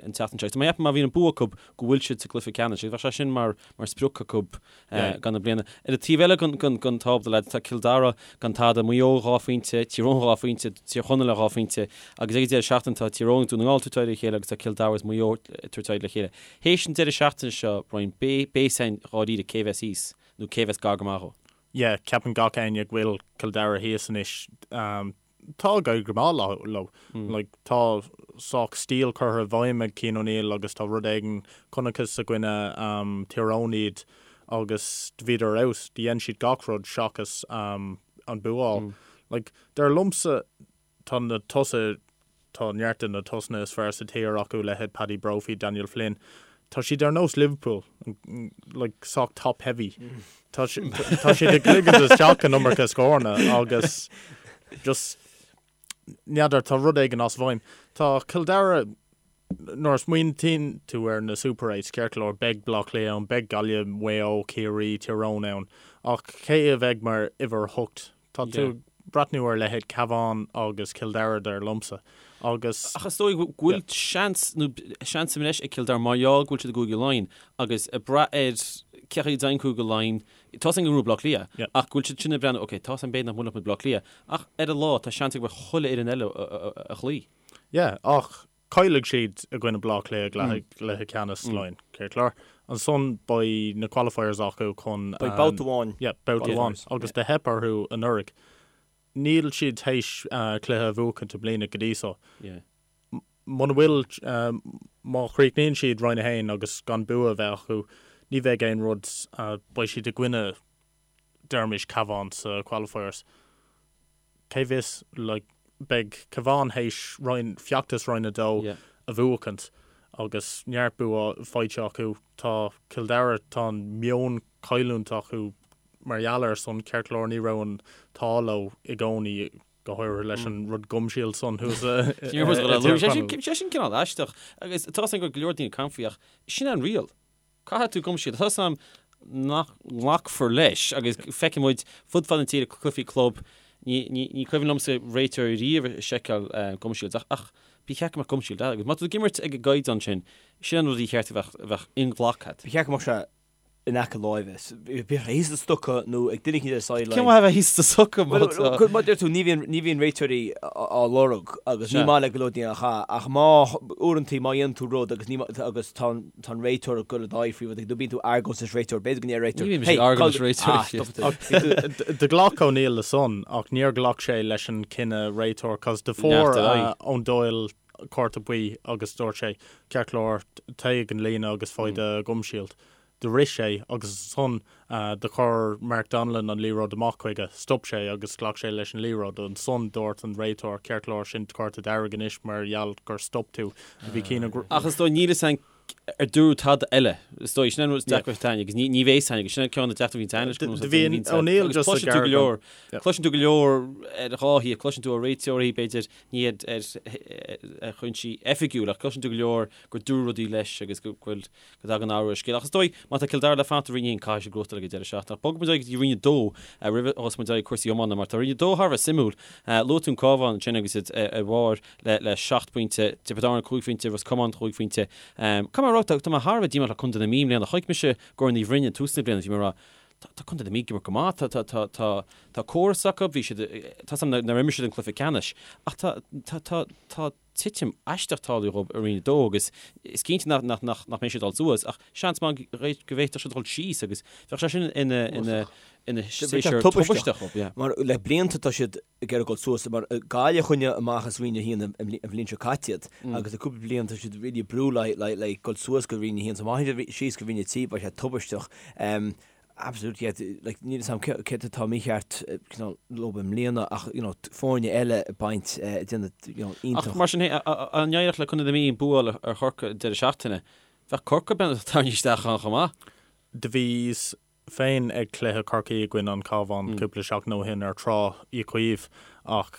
S1: an tseachtain seo agus tá mé ag ceapadh má bhíonn an bua acu go bhfuil siad sa gcluiche ceannais agus bheadh sé sin mar mar sprioc acu do na bliana. Ar an taobh eile den tábla, lads, tá Cill Dara gan tada, Maigh Eo 2 phointe, Tír Eoghain 2 phointe, Tír Chonaill 2 phointe agus ag an deireadh seachtaine tá Tír Eoghain agus Dún na nGall ag tabhairt aghaidh ar a chéile agus tá Cill Dara agus Maigh Eo ag tabhairt aghaidh le chéile. Théis an deireadh seachtaine seo, Brian, beidh fhios againn dháiríre cé bheas thíos nó cé bheas gar go maith dhó.
S3: Yeah, ceapann gach éinne go bhfuil Cill Dara thíos anois. Tá ag éirí go maith leo. Like, tá sách stíl curtha i bhfeidhm ag Cian O'Neill agus tá rud éigin, chonacthas i gcoinne Tír Eoghain iad agus do bhíodar ar fheabhas, do dhein siad gach rud seachas an bua a fháil. Like, dar liomsa, tá na tosaithe, tá neart de na tosaithe is fearr sa tír acu, leithéid Paddy Brophy, Daniel Flynn. Tá siad ar nós Liverpool, like sách top heavy. Tá tá siad ag ligint isteach an iomarca scóranna agus just n'fheadar, tá rud éigin as bhfeidhm. Tá Cill Dara, nuair a smaointíonn tú ar na Super Eights, ceart go leor, beidh Bleá Cliath ann, beidh Gaillimh, Maigh Eo, Ciarraí, Tír Eoghain ann, ach cé a bheidh mar uimhir 8? Tá tú ag breathnú ar leithéid Cabhán agus Cill Dara dar liomsa agus.
S1: Ach is dóigh go bhfuil seans, nó seans anois ag Cill Dara mar gheall go bhfuil siad i gCúige Laighean agus ag brath ar cé chaoi a dtéann Cúige Laighean, tá a fhios againn go ngnóthóidh Bleá Cliath ach go bhfuil siad sin ag breathnú, ok, tá a fhios againn b'fhéidir nach mbuailfidh muid Bleá Cliath ach ar an lá tá seans ag chuile fhoireann eile a chloí.
S3: Yeah, ach Caillfidh siad i gcoinne Bleá Cliath i gcluiche ceannais Laighean, ceart go leor. Ansan beidh na qualifiers acu chun.
S2: Beidh babhta amháin.
S3: Yeah, babhta amháin. Agus do theip orthu anuraidh. Níl siad théis cluiche a bhuachaint i mbliana go dtí so. Muna bhfuil, má chríochnaíonn siad Roinn 1 agus gan bua a bheith acu, ní bheidh aon rud, beidh siad i gcoinne, deirimis, Cabhán sa qualifiers. Cé bhfios, like, beidh Cabhán théis roinn, feachtas Roinn 2 a bhuachaint agus neart bua faighte acu. Tá Cill Dara, tá an meon cailliúint acu mar gheall air san, ceart go leor ní raibh an t-ádh leo i gcónaí, go háirithe leis an rud gum shield san thuas i
S1: dTír Chonaill. Sé sin cineál aisteach agus tá a fhios agam go bhfuil go leor daoine ag caint faoi ach sin an riail. Caithfidh tú gum shield. Tá a fhios agam nach nglacfar leis agus feicfidh muid fud fad na tíre cluichí club, ní, ní, ní cuimhin liomsa réiteoir riamh ag seiceáil gum shields ach, ach ba cheart go mbeadh gum shield agus má tá tú ag imirt ag an gcaighdeán sin, sin an rud a cheart a bheadh, a bheadh inghlactha.
S2: Ba cheart go mbeadh sé in aice láimhe. Bíodh sé thíos sa stoca nó ag duine éicint ar sideline.
S1: Cén mhaith a bheith thíos sa stoca má
S2: tá. Mar a deir tú, ní bhíonn, ní bhíonn réiteoirí á lorg agus ní maith le go leor daoine a chaith ach má, uaireantaí má dhéanann tú rud agus ní, agus tá an, tá an réiteoir ag dul i d'aghaidh faoi rud éigin nó bíonn tú ag argóint leis réiteoir, b'fhéidir go ndeir réiteoir,
S1: Ní bhíonn mise ag argóint leis réiteoir.
S3: Do ghlac O'Neill le san ach níor ghlac sé leis an cinneadh réiteoir cos do fuair Eoin Doyle cárta buí agus dúirt sé, ceart go leor, téigh ag an líne agus faigh do gum shield. Do rith sé agus ansan do chuir Mark Donnellan an liathróid amach chuige. Stop sé agus ghlac sé leis an liathróid. Ansan dúirt an réiteoir, ceart go leor, sin cárta dearg anois mar gheall gur stop tú. Bhí
S1: cinneadh. Ach is dóigh níl fhios againn ar dúradh tada eile. Is dóigh, sin an rud is deacra atá agus ní bheidh fhios againn agus sin an ceann na deacrachtaí a bhíonn leis.
S3: Do bhí O'Neill just ag
S1: cloiseann tú go leor, cloiseann tú go leor ar dhá thaobh, cloiseann tú ó réiteoirí, b'fhéidir, ní ar chúinsí oifigiúil ach cloiseann tú go leor gur dúradh rudaí leis agus go bhfuil, go dtagann athrú ar scéal. Ach is dóigh, má tá Cill Dara le fanacht i Roinn 1, caithfidh siad gnóthachtáil ag an deireadh seachtaine. Ach bogfaidh muid ar aghaidh go dtí Roinn 2 roimh a thosóidh muid ar cúrsaí iomána, mar tá Roinn 2 thar a bheith suimiúil. Luaigh tú an Cabhán ansin agus iad ar bharr le seacht bpointe, Tiobraid Árann cúig phointe, Ros Comáin cúig phointe. Caithfidh mé a rá, tá mé thar a bheith díomách le Contae na Mí i mbliana. Chonaic mise Gort an Bhroin ag tús na bliana, bhí mé ag rá, tá Contae na Mí ag imirt go maith, tá córas acu, bhí siad, tá 's agam nár imir siad an cluiche ceannais, ach tá, tá, tá, tá, titim aisteach tarlaithe dhóibh i Roinn 2 agus is cinnte nach mbeidh siad ag dul suas ach seans maith go bhféadfadh siad dul síos agus bheadh sé sin ina ina séasúr tubaisteach
S2: dhóibh. Yeah. Mar le blianta tá siad ag iarraidh dul suas mar Gaillimh a choinnigh amach as Roinn 1 an bhliain seo caite iad agus le cúpla bliain tá siad really ag brú le le dul suas go Roinn 1 so má théann siad síos go Roinn 3 beidh sé tubaisteach. Absolutely, yeah, like, níl 'fhios a'm céard atá mícheart cineál leo i mbliana ach, you know, foirne eile ag baint, ag déanamh, you know,
S1: iontach. Ach mar sin féin, dá n-éireodh le Contae na Mí an bua a fháil ar Chorcaigh an deireadh seachtaine, bheadh Corcaigh tarraingthe isteach ann chomh maith.
S3: Do bhíos féin ag cluiche Chorcaí i gcoinne an Chabháin cúpla seachtain ó shin ar Trá Uí Chaoimh ach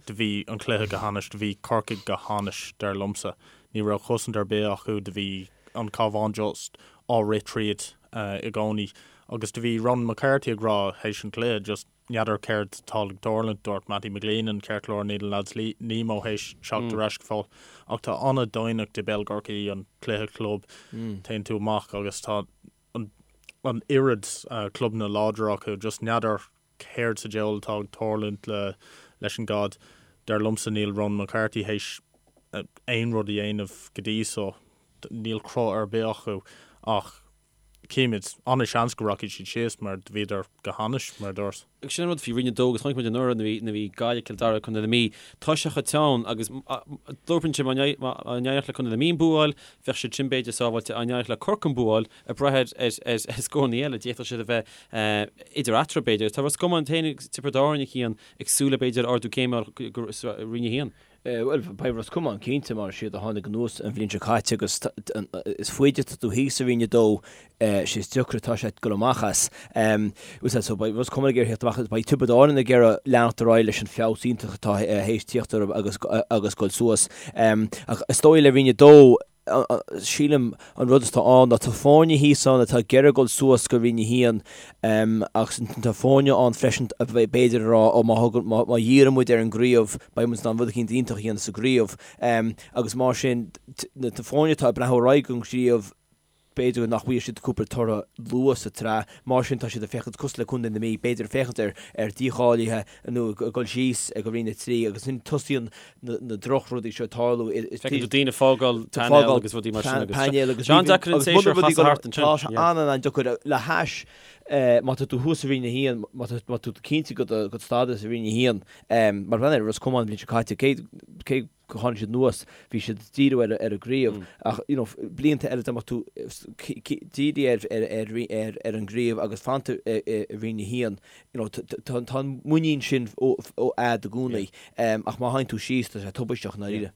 S3: do bhí an cluiche go hainnis, do bhí Corcaigh go hainnis, dar liomsa. Ní raibh cosaint ar bith acu, do bhí an Cabhán just á rith tríd. i gcónaí agus do bhí Ronan McCarthy ag rá théis an chluiche just n'fheadar céard atá ag tarlúint, dúirt Mattie McGleenan ceart go leor níl na lads Nemo théis teacht ar ais go fóill ach tá an-doimhneacht i bpeil Chorcaí an cluiche club téann tú amach agus tá an an oiread clubanna láidre acu just n'fheadar céard sa diabhal atá ag tarlúint le leis an gcaid. Dar liomsa níl Ronan McCarthy théis aon rud a dhéanamh go dtí so. Níl cruth ar bith acu ach címid. An-seans go rachaidh siad síos mar do bhíodar go hainnis, mar a dúrt.
S1: Agus sin an rud faoi Roinn 2 agus chonaic muid anuraidh nuair a bhí Gaillimh, Cill Dara, Contae na Mí, tá sé chomh teann agus dúirt mé má n-éireodh le Contae na Mí an bua a fháil, bheadh siad sin b'fhéidir sábháilte, dá n-éireodh le Corcaigh an bua a fháil, ag brath ar scóranna eile, d'fhéadfadh siad a bheith idir eatarthu b'fhéidir. Tá Ros Comáin féin agus Tiobraid Árann a Chian ag súil le b'fhéidir ardú céime go Roinn 1.
S2: Bhuel, beidh Ros Comáin cinnte mar is iad a tháinig anuas an bhliain seo caite agus is faide atá tú thíos i Roinn 2, sé is deacra atá sé dul amach as. So beidh Ros Comáin ag iarraidh theacht amach as, beidh Tiobraid Árann ag iarraidh leanacht ar aghaidh leis an feabhas iontach atá théis tíocht orthu agus agus dul suas. Ach is dóigh le Roinn 2, sílim an rud atá ann ná tá foirne thíos ann atá ag iarraidh dul suas go Roinn 1 agus tá foirne ann freisin a b'fhéidir a rá ó má thugann, má dhíríonn muid ar an gcraobh beidh muid in ann rud eicínt iontach a dhéanamh sa gcraobh agus mar sin na foirne atá ag breathnú ar aghaidh don chraobh b'fhéidir nach bhfaighidh siad cúpla toradh luath sa tsraith, mar sin tá siad ag féachaint cosúil le Contae na Mí, b'fhéidir ag féachaint ar ar dícháilithe nó ag dul síos go Roinn 3 agus ansin tosaíonn na drochrudaí seo ag tarlú.
S1: Feiceann tú daoine ag fágáil painéal agus rudaí mar sin agus painéal agus an-deacair an séasúr a chasadh thart
S2: ansin. Tá sé an-an-deacair le hais má tá tú thuas i Roinn 1, má tá tú cinnte de do stádas i Roinn 1, mar bhean ar Ros Comáin an bhliain seo caite, cé gur tháinig siad anuas, bhí siad ag díriú ar an gcraobh ach you know blianta eile dá mbeadh tú dírithe ar an gcraobh agus fanta i Roinn 1, you know tá an muinín sin a'd i gcónaí ach má théann tú síos tá sé tubaisteach i ndáiríre.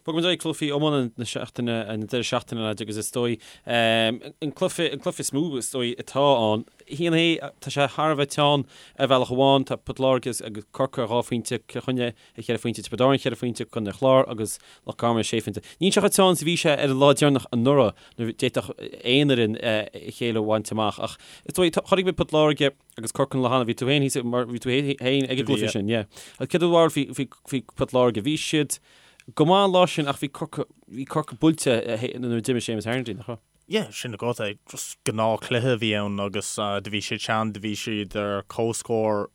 S1: Bogfaidh muid ar aghaidh cluichí iomána na seachtaine, an deireadh seachtaine lads agus is dóigh an cluiche, an cluiche is mó is dóigh atá ann, haon é, tá sé thar a bheith teann ar bhealach amháin, tá Port Láirge agus Corcaigh ar dhá phointe, Cill Chainnigh ar cheithre phointe, Tiobraid Árann cheithre phointe, Contae an Chláir agus Loch Garman sé phointe. Níl sé chomh teann is a bhí sé ar an lá deireanach anuraidh nuair a d'fhéadfadh aon fhoireann a chéile a bhaint amach ach is dóigh, chonaic muid Port Láirge, Agus Corcaigh an lá cheana, bhí tú féin thíos mar bhí tú féin ag an gcluiche sin, yeah. Agus céard é do bharúil faoi, faoi, faoi Port Láirge? Bhí siad go maith an lá sin ach bhí Corcaigh, bhí Corcaigh buailte nuair a d'imigh Séamus Harnedy, nach raibh?
S3: Yeah, sin agat é. Just gnáthchluiche a bhí ann agus do bhí siad teann, do bhí siad ar comhscór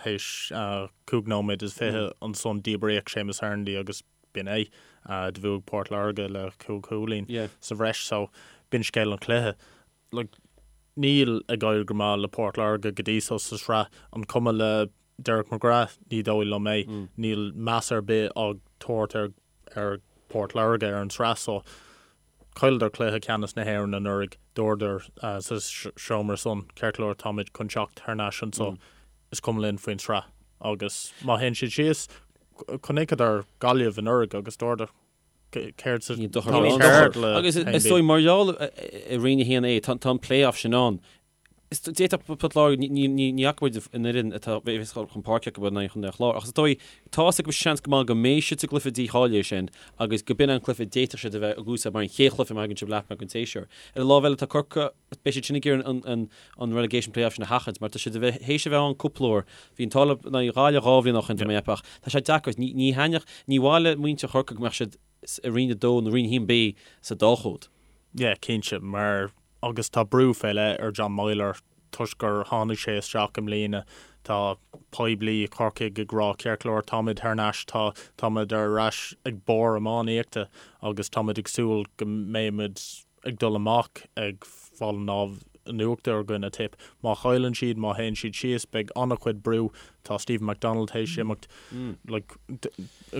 S3: théis 5 nóiméad is 20 ansan díbríodh Séamus Harnedy agus b'in é. Do bhuaigh Port Láirge le cúig chúilín sa bhreis so b'in scéal an chluiche. Like, níl ag éirí go maith le Port Láirge go dtí so sa sraith. An cuma le Derek McGrath? Ní dóigh liom é. Níl meas ar bith á tabhairt ar ar Port Láirge ar an sraith so. Chailleadar cluiche ceannais na hÉireann anuraidh. Dúradar sa seomra san, ceart go leor, táimid chun teacht thar n-ais anso. Is cuma linn faoin sraith. Agus má théann siad síos, chonaiceadar Gaillimh anuraidh agus dúradar,
S1: Céard sa Ní dochar ann. Céard le Agus is dóigh mar gheall i Roinn 1A tá an play-off sin ann. Is d'fhéadfadh Port Láirge, ní fhaca muid an fhoireann atá bheas chun páirce acu in aghaidh Chontae an Chláir ach is dóigh tá fhios acu seans go maith go mbeidh siad sa gcluiche dícháilithe sin agus go b'in an cluiche d'fhéadfadh siad a bheith ag úsáid mar an chéad chluiche má thagann siad leath amach den tséasúr. Ar an lámh eile tá Corcaigh, beidh siad sin ag iarraidh an an relegation play-off sin a sheachaint mar tá siad a bheith théis a bheith ann cúpla uair. Bhí an t-ádh leo in aghaidh Ghaillimh dhá bhliain ó shin tá mé ag ceapadh ach tá sé deacair. Ní ní thaitneodh, ní mhaith le muintir Chorcaí go mbeadh siad i Roinn 2 nó Roinn 1B sa dá chód.
S3: Yeah, cinnte, mar agus tá brú fé leith ar John Meyler toisc gur tháinig sé isteach i mbliana. Tá poiblí i Corcaigh ag rá ceart go leor táimid thar n-ais, tá táimid ar ais ag barr iománaíochta agus táimid ag súil go mbeimid ag dul amach ag fáil an lámh in uachtar i gcoinne Tip. Má chailleann siad, má théann siad síos, beidh an-chuid brú. Tá Stephen McDonald théis imeacht. Like,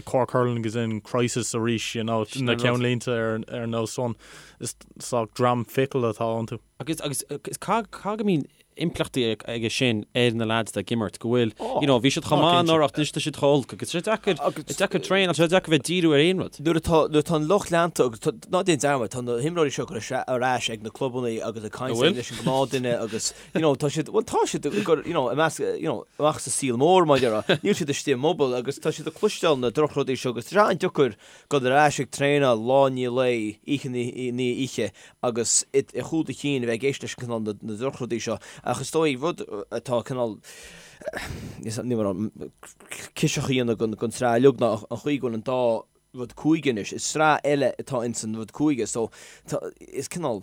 S3: Cork Hurling is in crisis arís, you know, na ceannlínte ar ar nós san. Is sách dream fickle atá iontu.
S1: Agus agus caithfidh go mbíonn impleachtaí aige sin ar na lads atá ag imirt, go bhfuil, you know, bhí siad chomh maith anuraidh ach anois tá siad chomh holc agus tá sé deacair, deacair traenáil, tá sé deacair bheith díriú ar aon rud.
S2: Nuair atá, nuair atá an lucht leanta agus tá, ná déan dearmad, tá na himreoirí seo ag dul ar ais ag na clubanna agus ag caint leis an gnáthdhuine agus, you know, tá siad, bhuel tá siad ag dul, you know, i measc, you know, amach sa saol mór mar a déarfá, níl siad istigh i mbubble agus tá siad ag cloisteáil na drochrudaí seo agus tá sé an-deacair dul ar ais ag traenáil lá i ndiaidh lae, oíche i ndiaidh oíche agus i gcúl do chinn a bheith ag éisteacht leis an cineál na drochrudaí seo. Ach is dóigh rud atá cineál níl mé ciseach a dhéanamh den tsraith uilig ná an chaoi go bhfuil an dá rud cúige anois. Is sraith eile atá ins an rud cúige so tá is cineál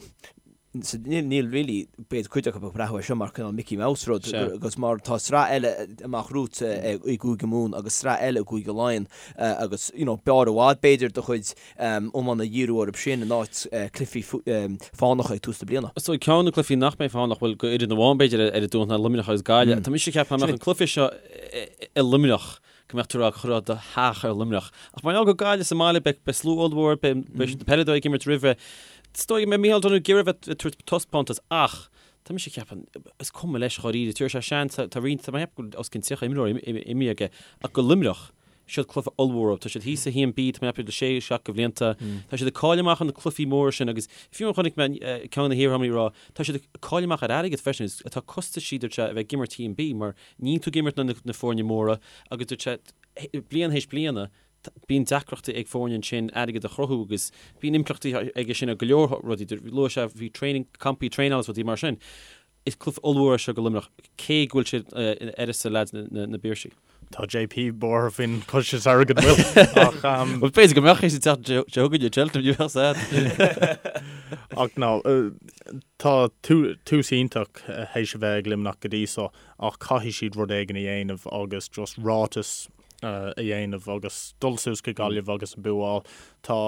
S2: So níl, níl really, b'fhéidir cuid acu ag breathnú air seo mar cineál Mickey Mouse rud, agus mar tá sraith eile amach romhat i gCúige Mumhan agus sraith eile i gCúige Laighean agus, you know, b'fhearr i bhfad b'fhéidir do chuid iomána a dhíriú orthu sin in áit cluichí fánacha ag tús na bliana.
S1: So ceann de na cluichí nach mbeidh fánach, bhuel, go fhoireann amháin b'fhéidir ar an Domhnach ná Luimneach agus Gaillimh. Tá mise ag ceapadh dá mbeadh an cluiche seo i Luimneach, go mbeadh tú ag rá chuirfeá do theach ar Luimneach. Ach mar gheall gur Gaillimh sa mbaile, beidh beidh slua ollmhór, beidh beidh na peileadóirí ag imirt roimhe. Is dóigh go mbeidh Micheál Donoghue ag iarraidh bheith ag tabhairt taispeántas ach tá mise ag ceapadh, is cuma leis dháiríre, tabharfaidh sé seans, tá roinnt, tá mé ag ceapadh go bhfuil os cionn 30 imreoir imithe aige ach go Luimneach. Siod cluiche ollmhór dóibh. Tá siad thíos sa 1B, tá mé ag ceapadh le sé, 7 de bhlianta. Tá siad ag cailleadh amach ar na cluichí móra sin agus fiú amháin chonaic mé ceann de na hiarfhondúirí ag rá, tá siad ag cailleadh amach ar airgead freisin, tá costaisí dúirt sé a bheith ag imirt 1B mar níl tú ag imirt na foirne móra agus dúirt sé bliain théis bliana bíonn deacrachtaí ag foirne ansin airgead a chruthú agus bíonn impleachtaí aige sin ar go leor rudaí. Luaigh sé faoi training, campaí traenála agus rudaí mar sin. Is cluiche ollmhór é seo do Luimneach, cé go bhfuil siad in uireasa leaids na bPiarsaigh.
S3: Tá JP buartha faoin chostas airgid an bhfuil
S1: ach. Bhuel, b'fhéidir go mbeadh sé sa tseachtain seo chugainn i Cheltenham, ní bheadh sad.
S3: Ach no, tá tús iontach théis a bheith ag Luimneach go dtí so ach caithfidh siad rud éigin a dhéanamh agus just ráiteas a dhéanamh agus dul suas go Gaillimh agus an bua a fháil. Tá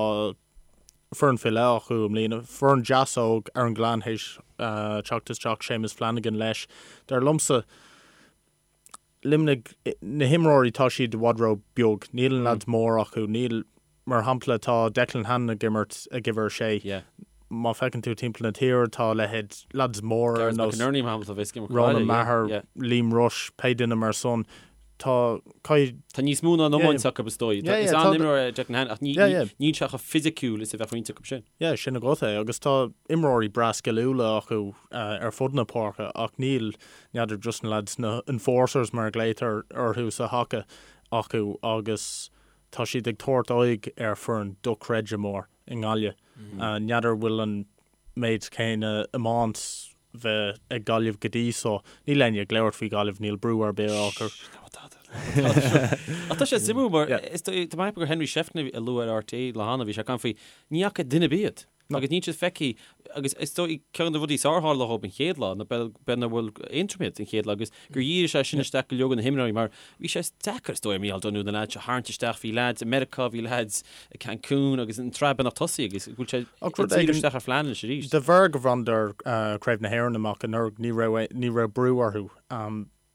S3: foireann faoi leith acu i mbliana. Foireann deas óg Aaron Gillane théis teacht isteach, Séamus Flanagan leis. Dar liomsa, Luimnigh, na himreoirí tá siad i bhfad ró beag. Níl an leaids mór acu. Níl, mar shampla tá Declan Hannon ag imirt ag uimhir a sé. Má feiceann tú timpeall na tíre tá leithéid leaids mór ar nós Ronan Maher, Liam Rushe, pé duine mar san. Tá,
S1: caithfidh. Tá níos mó ná an iomáint acu is dóigh. Is an-imreoir é Declan Hannon ach níl sé chomh fisiciúil is a bheadh roinnt acu sin.
S3: Yeah, sin agat é. Agus tá imreoirí breá sciliúla acu ar fud na páirce ach níl, n'fheadar, just na lads, na enforcers mar a ghlaotar orthu sa haca acu agus tá siad ag tabhairt aghaidh ar foireann dochreidte mór i nGaillimh. N'fheadar bhfuil an méid céanna iomáint bheith ag Gaillimh go dtí so. Níl éinne ag labhairt faoi Ghaillimh, níl brú ar bith á chur.
S1: Ach tá sé suimiúil mar is tá mé ag ceapadh gur Henry Shefflin a luaigh ar RTÉ lá cheana, bhí sé ag caint faoi ní fhaca duine ar bith iad agus níl siad feicthe agus is dóigh ceann de na rudaí is fearr a tharla dhóibh an chéad lá ná b'fhéidir nach bhfuil Aontroim iad an chéad lá agus gur dhírigh sé sin isteach go leor de na himreoirí mar bhí sé deacair is dóigh ar Micheál Donoghue na leaids a tharraingt isteach, bhí leaids i Meiriceá, bhí leaids i Cancún agus an tsraith beagnach tosaithe agus go bhfuil sé
S3: ag díriú
S1: isteach ar phlean anois arís.
S3: De bharr go bhaineadar Craobh na hÉireann amach anuraidh ní raibh ní raibh brú orthu.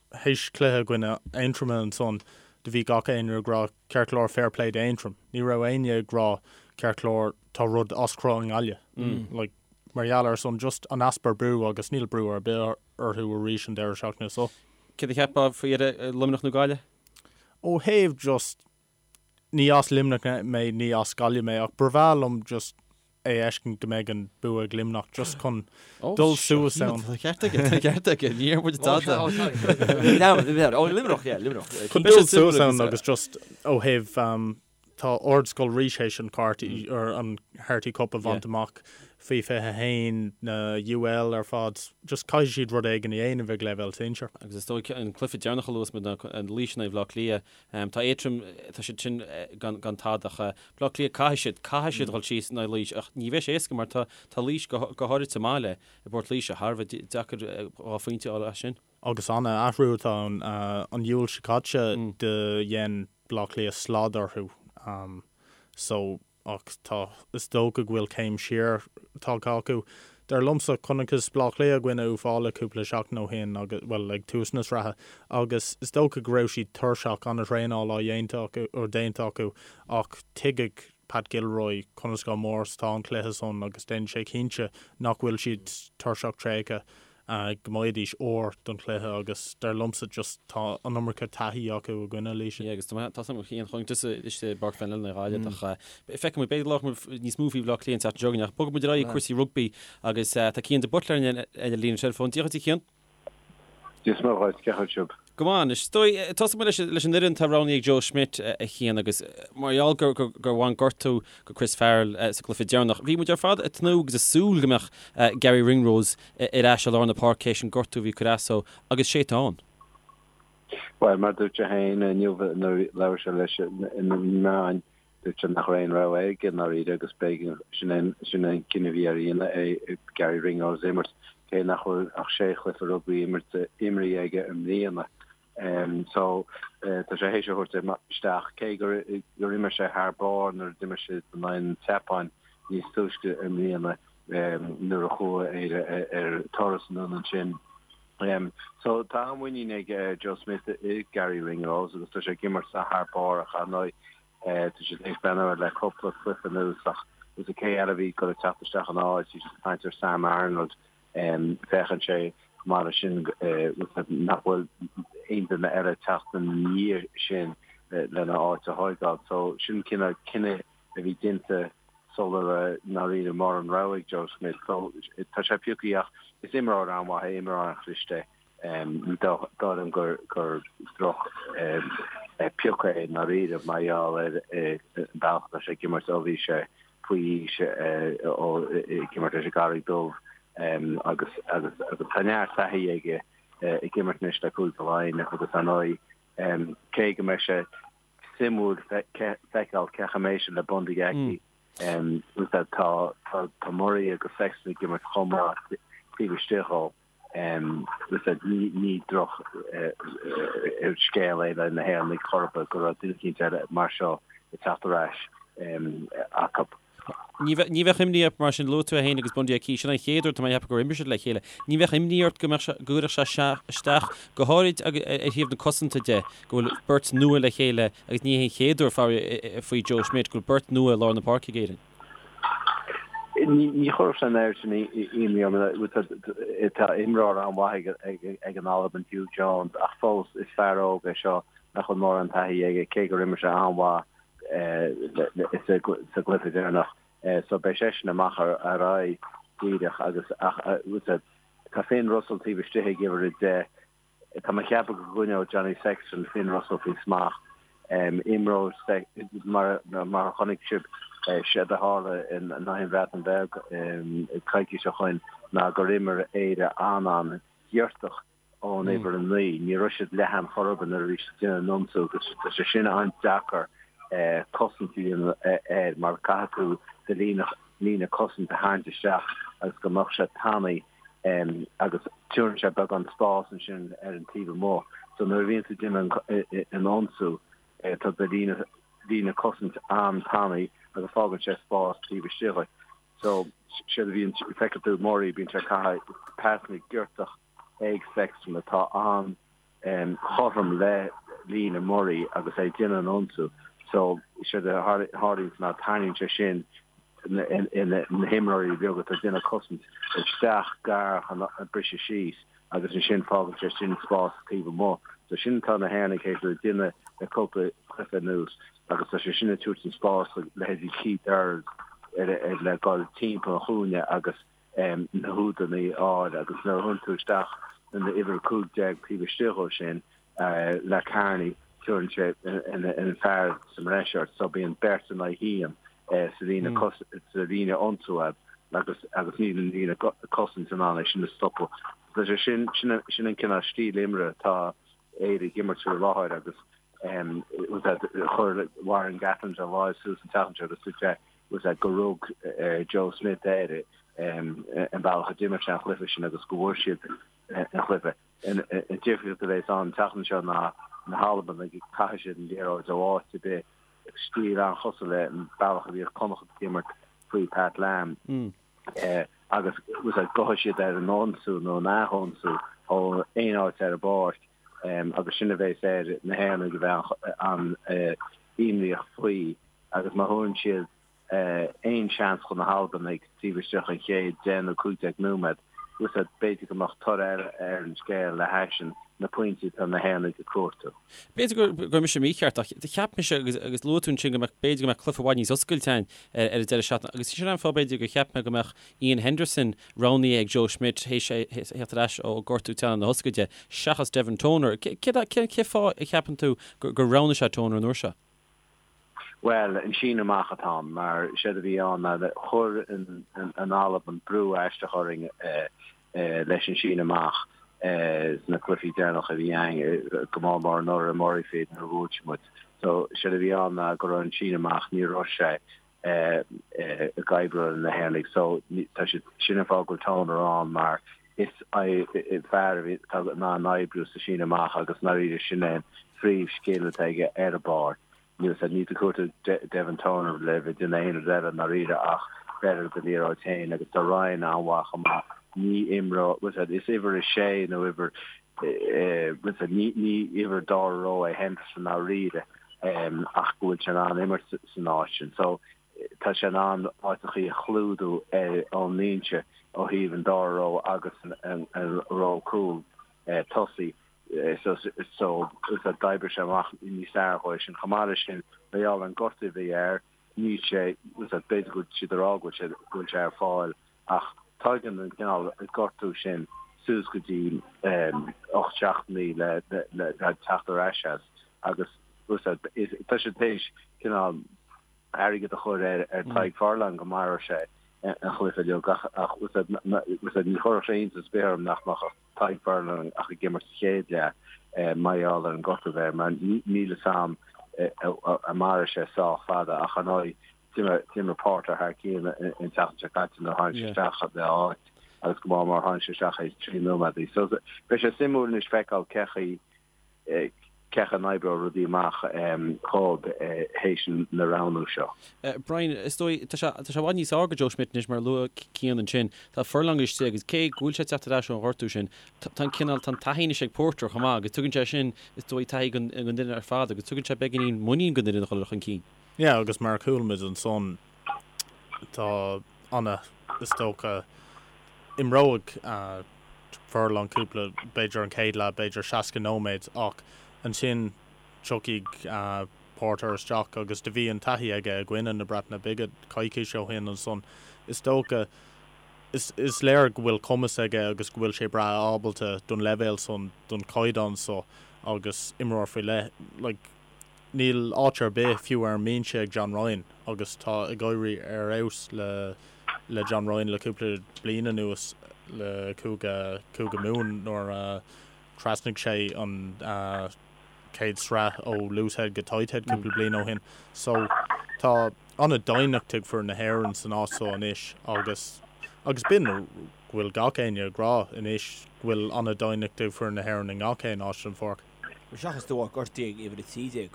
S3: Théis cluiche i gcoinne Aontroma ansan do bhí gach éinne ag rá ceart go leor fair play d'Aontroim. Ní raibh éinne ag rá ceart go leor tá rud as cruth i nGaillimh. Like mar gheall ar san just an easpa brú agus níl brú ar bith orthu arís an deireadh seachtaine
S1: so. Céard a cheapfá faoi Luimneach nó Gaillimh?
S3: Ó thaobh just ní as Luimneach mé, ní as Gaillimh mé, ach ba bhreá liom just é a fheiscint go mbeidh an bua ag Luimneach just chun dul suas
S1: ann. Tá ceart aige, tá ceart aige, ní dheir muid
S2: tada. Ó Luimneach, yeah, Luimneach.
S3: Chun dul suas ann agus just ó thaobh tá Ardscoil Rís théis an Carty or an Harty Cup a bhaint amach faoi 21 na UL ar fad, just caithfidh siad rud éigin a dhéanamh ag leibhéal
S1: sinsir. Agus is dóigh an cluiche deireanach a luas muid ná an Laois in aghaidh Bhaile Átha Cliath. Tá Aontroim, tá siad sin gan gan tada ach Baile Átha Cliath caithfidh siad, caithfidh siad dhul síos in aghaidh Laois ach ní bheidh sé éasca mar tá tá Laois go go háirid sa mbaile i bPort Laoise thar a bheith deacair 2 phointe a fháil as sin.
S3: Agus an-athrú atá ann. An Iúil seo caite do dhein Baile Átha Cliath slad orthu so ach tá, is dócha go bhfuil céim siar tagtha acu. Dar liomsa, chonacthas Baile Átha Cliath i gcoinne Uíbh Fhailí cúpla seachtain ó shin agus, bhuel, ag tús na sraithe, agus is dócha go raibh siad tuirseach, an-traenáil á dhéanta acu, or déanta acu, ach tuigfidh Pat Gilroy conas chomh mór is atá an cluiche san agus déanfaidh sé cinnte nach bhfuil siad tuirseach tréigthe. go mbeidís úr don chluiche agus dar liomsa just tá an iomarca taithí acu i gcoinne
S1: Laoise. Yeah agus tá tá sam Cian chun tusa istigh i bPáirc Van Lenna Ghaillimh ach feicfidh muid b'fhéidir go labhróidh muid níos mó faoi Bhaile Átha Cliath an tseachtain seo chugainn ach bogfaidh muid ar aghaidh ag cúrsaí rugbaí agus tá Cian de Buitléar ar an líne teileafóin. Dia dhuit a Chian.
S4: Dia is Muire dhuit, cén chaoi a bhfuil sibh?
S1: Go maith anois. Is dóigh, tosóidh muid leis an fhoireann atá roghnaithe ag Joe Schmidt, a Chian, agus mar gheall gur bhain gortú go Chris Farrell sa gcluiche deireanach, bhí muid ar fad ag tnúth agus ag súil go mbeadh Garry Ringrose ar ais i lár na páirce théis an gortú a bhí ag cur as dó, agus sé atá ann.
S4: Bhuel, mar a dúirt sé féin inniu nuair a labhair sé leis na meáin, Dúirt sé nach raibh aon rogha aige i ndáiríre agus b'éigean, sin é sin é an cinneadh a bhí air a dhéanamh, é Garry Ringrose a imirt, cé nach bhfuil ach sé chluiche rugbaí imirte, imrithe aige i mbliana. So, tá sé théis a thabhairt isteach, cé gur gur imir sé thar barr nuair a d'imir siad in aghaidh an tSeapáin níos túisce i mbliana nuair a chuaigh Éire ar turas anonn ansin. So, tá an-mhuinín ag Joe Schmidt i Garry Ringrose agus tá sé ag imirt thar barr ach ar ndóigh Tá siad tar éis breathnú air le cúpla cluiche anuas ach is cé eile a bhí ag dul ag teacht isteach ina áit, bhí siad ag caint ar Sam Arnold. Féachann sé chomh maith leis sin nach bhfuil aon duine eile ag teacht ina dhiaidh sin. lena áit a thóigeáil. So sin cineál cinneadh a bhí déanta sula raibh i ndáiríre mórán rogha ag Joe Schmidt. So tá sé pioctha ach is imreoir an-mhaith é, imreoir an-chliste é. Ní dóigh liom gur gur droch piocadh é i ndáiríre mar gheall ar an bealach atá sé ag imirt ó bhí sé faoi aois ag imirt leis an gCarraig Dubh agus agus agus tá neart taithí aige ag imirt anois le Cúige Laighean agus ar ndóigh cé go mbeidh sé suimiúil feiceáil cén chaoi a mbeidh sé le Bundee Aki. Tá tá Murray agus Sexton ag imirt chomh maith taobh istigh dhó. Ní ní droch scéal é le na hÉireannaigh chor ar bith go raibh duine eicínt eile mar seo ag teacht ar ais acu.
S1: Ní bheadh imní ort mar sin, luaigh tú é féin agus Bundee Aki, sin an chéad uair tá mé ag ceapadh gur imir siad le chéile. Ní bheadh imní ort go mbeadh sé, go gcuirfeadh sé isteach, go háirid ar thaobh na cosanta de, go bhfuil beirt nua le chéile agus ní hé an chéad uair faraor faoi Joe Schmidt go bhfuil beirt nua i lár na páirce ag Éirinn.
S4: Ní chuirfeadh sé an oiread sin imní orm. Tá imreoir an-mhaith ag an Albain, Huw Jones, ach fós is fear óg é seo nach bhfuil mórán taithí aige, cé gur imir sé an-mhaith sa gcluiche deireanach. So beidh seisean amach ar aghaidh díreach agus ach tá Finn Russell taobh istigh ag uimhir 10. Tá mé ag ceapadh go gcoinneoidh Johnny Sexton Finn Russell faoi smacht. Imreoidh mar mar a chonaic sibh séard a tharla in aghaidh an Bhreatain Bheag coicís ó shoin ná gur imir Éire an-an-ghiortach ón uimhir 9. Ní raibh siad leathan chor ar bith nuair a bhí siad ag déanamh an ionsú agus tá sé sin an-deacair cosaint a dhéanamh air mar caithfidh tú do líne líne cosanta a tharraingt isteach agus go mbeadh sé tanaí agus tabharann sé beagán spás ansin ar an taobh amuigh. So nuair a bhíonn tú ag déanamh an ionsú tá do líne líne cosaint an-tanaí agus fágann sé spás taobh istigh dhuit. So séard a bhíonn, feicfidh tú Murray, bíonn sé ag caitheamh pasanna giortach ag Sexton atá an-chothrom le líne Murray agus é ag déanamh an ionsú. So séard a tharlaíonns ná tarraingíonn sé sin na himreoirí beaga atá ag déanamh cosaint isteach gar chun briseadh síos agus ansin fágann sé sin spás taobh amuigh. So sin atá na hÉireannaigh théis a dhéanamh le cúpla cluiche anuas agus tá sé sin ag tabhairt an spás do leithéidí Keith Earls ar le dul timpeall an chúinne agus na húdanna a fháil agus nuair a thabharann tú isteach an uimhir 15 taobh istigh dhó sin le Kearney tabharann sé an fear sa mbreis ort so bíonn beirt in aghaidh haon sa líne sa líne ionsaí agus agus níl an líne cosaint in ann é sin a stopadh. Tá sé sin sin sin an cineál stíl imeartha atá Éire ag imirt faoi láthair agus chuir Warren Gatland a láimh suas an tseachtain seo agus dúirt sé was that gur rug Joe Schmidt air an bealach a d'imir sé an chluiche sin agus go bhfuair siad an chluiche. An difríocht a bheas ann an tseachtain seo ná na hAlbanaigh caithfidh siad an liathróid ó áit ar bith, stíl an-chosúil le an bealach a bhíodh Connacht ag imirt faoi Pat Lam agus was that gabhfaidh siad ar an ionsú nó an ath-ionsú ó aon áit ar an bpáirc agus sin a bheas ar na hÉireannaigh a bheith an-imníoch faoi. Agus má thabharann siad aon seans do na hAlbanaigh taobh istigh den chéad 10 nó 15 nóiméad, was that b'fhéidir go mbeadh toradh eile ar an scéal le hais na pointí atá na hÉireannaigh ag cuartú.
S1: B'fhéidir go raibh mise mícheart ach cheap mise agus luaigh tú ansin go mbeadh, b'fhéidir go mbeadh cluiche i bhfad níos oscailte ann ar an deireadh seachtaine agus sin an fáth b'fhéidir gur cheap mé go mbeadh Iain Henderson roghnaithe ag Joe Schmidt théis é theacht ar ais ó gortú teannán na hioscaide seachas Devin Toner. Cén fáth a cheapann tú gur roghnaigh sé Toner an uair seo?
S4: Bhuel, an síneadh amach atá ann, mar séard a bhí ann ná chuir an Albain brú aisteach orainn leis an síneadh amach sna cluichí deireanacha a bhí againn, go mór mór anuraidh i Murrayfield nuair a bhuail siad muid. So, séard a bhí ann ná go raibh an síneadh amach, ní raibh sé ag oibriú le na hÉireannaigh. So, tá siad, sin an fáth go bhfuil Toner ann mar is fear a bhí atá in ann oibriú sa síneadh amach agus i ndáiríre sin é an phríomh scil atá aige ar an bpáirc. Níl a fhios a'd, níl tú ag cuartú Devin Toner le bheith ag déanamh aon rud eile i ndáiríre ach bheith ar do liathróid féin agus tá Ryan an-mhaith chomh maith. Ní imreoir, bhfuil a fhios a'd, is uimhir 6 nó uimhir, bhfuil a fhios a'd, ní ní uimhir dara ró é Henderson i ndáiríre ach go bhfuil sé in ann imirt san áit sin. So tá sé in ann áiteachaí a chlúdú ón mbinse ó thaobh an dara ró agus an ró cúl tosaigh. So so d'oibrigh sé amach níos fearr dhó sin. Chomh maith leis sin, mar gheall ar an gortú a bhí air, níl sé, b'fhéidir go bhfuil siad ag rá go bhfuil sé, go bhfuil sé ar fáil ach tógann an cineál gortú sin suas go dtí 8 seachtainí le le teacht ar ais as agus tá siad théis cineál airgead a chur ar ar Tadhg Furlong go mairfeadh sé an chluiche uilig ach ach ní chuirfeadh sé iontas ar bith orm nach mbeadh Tadhg Furlong ach ag imirt sa chéad leath mar gheall ar an gortú a bheith air mar níl fhios a'm an mairfidh sé sách fada ach ar ndóigh d'imir Porter thar cionn an tseachtain seo caite nuair a tháinig sé isteach le áit agus go maith mar tháinig sé isteach théis 3 nóiméad. So beidh sé suimiúil anois feiceáil cé chaoi cé chaoi a n-oibreoidh rudaí amach dhóibh théis na roghnú seo.
S1: Brian, is dóigh, tá sé tá sé i bhfad níos fearr do Joe Schmidt anois mar a luaigh Cian ansin. Tá Furlong istigh agus cé go bhfuil sé ag teacht ar ais ón ghortú sin, tá an cineál, tá an taithí anois ag Porter chomh maith agus tugann sé sin, is dóigh, taithí don fhoireann ar fad agus tugann sé beagáinín muinín don fhoireann a dhul chun cinn.
S3: Yeah, agus mar a chuala muid ansan, tá ana, is dócha, imreoidh Furlong cúpla, b'fhéidir an chéad leath, b'fhéidir 60 nóiméad, ach ansin tiocfaidh Porter isteach agus do bhí an taithí aige i gcoinne na Breataine Bige coicís ó shin ansan. Is dócha, is, is léir go bhfuil cumas aige agus go bhfuil sé breá ábalta don leibhéal san, don chaighdeán so agus imreoir faoi leith, like, Níl áit ar bith fiú ar an mbinse ag John Ryan agus tá ag éirí ar fheabhas le le John Ryan le cúpla bliain anuas le Cúige Cúige Mumhan nuair a thrasnaigh sé an chéad sraith ó loosehead go tighthead cúpla bliain ó shin. So tá an-doimhneacht ag foireann na hÉireann san áit so anois agus agus b'in go bhfuil gach éinne ag rá anois go bhfuil an-doimhneacht ag foireann na hÉireann i ngach aon áit den pháirc.
S2: Seachas de bharr gortaithe ag uimhir 13,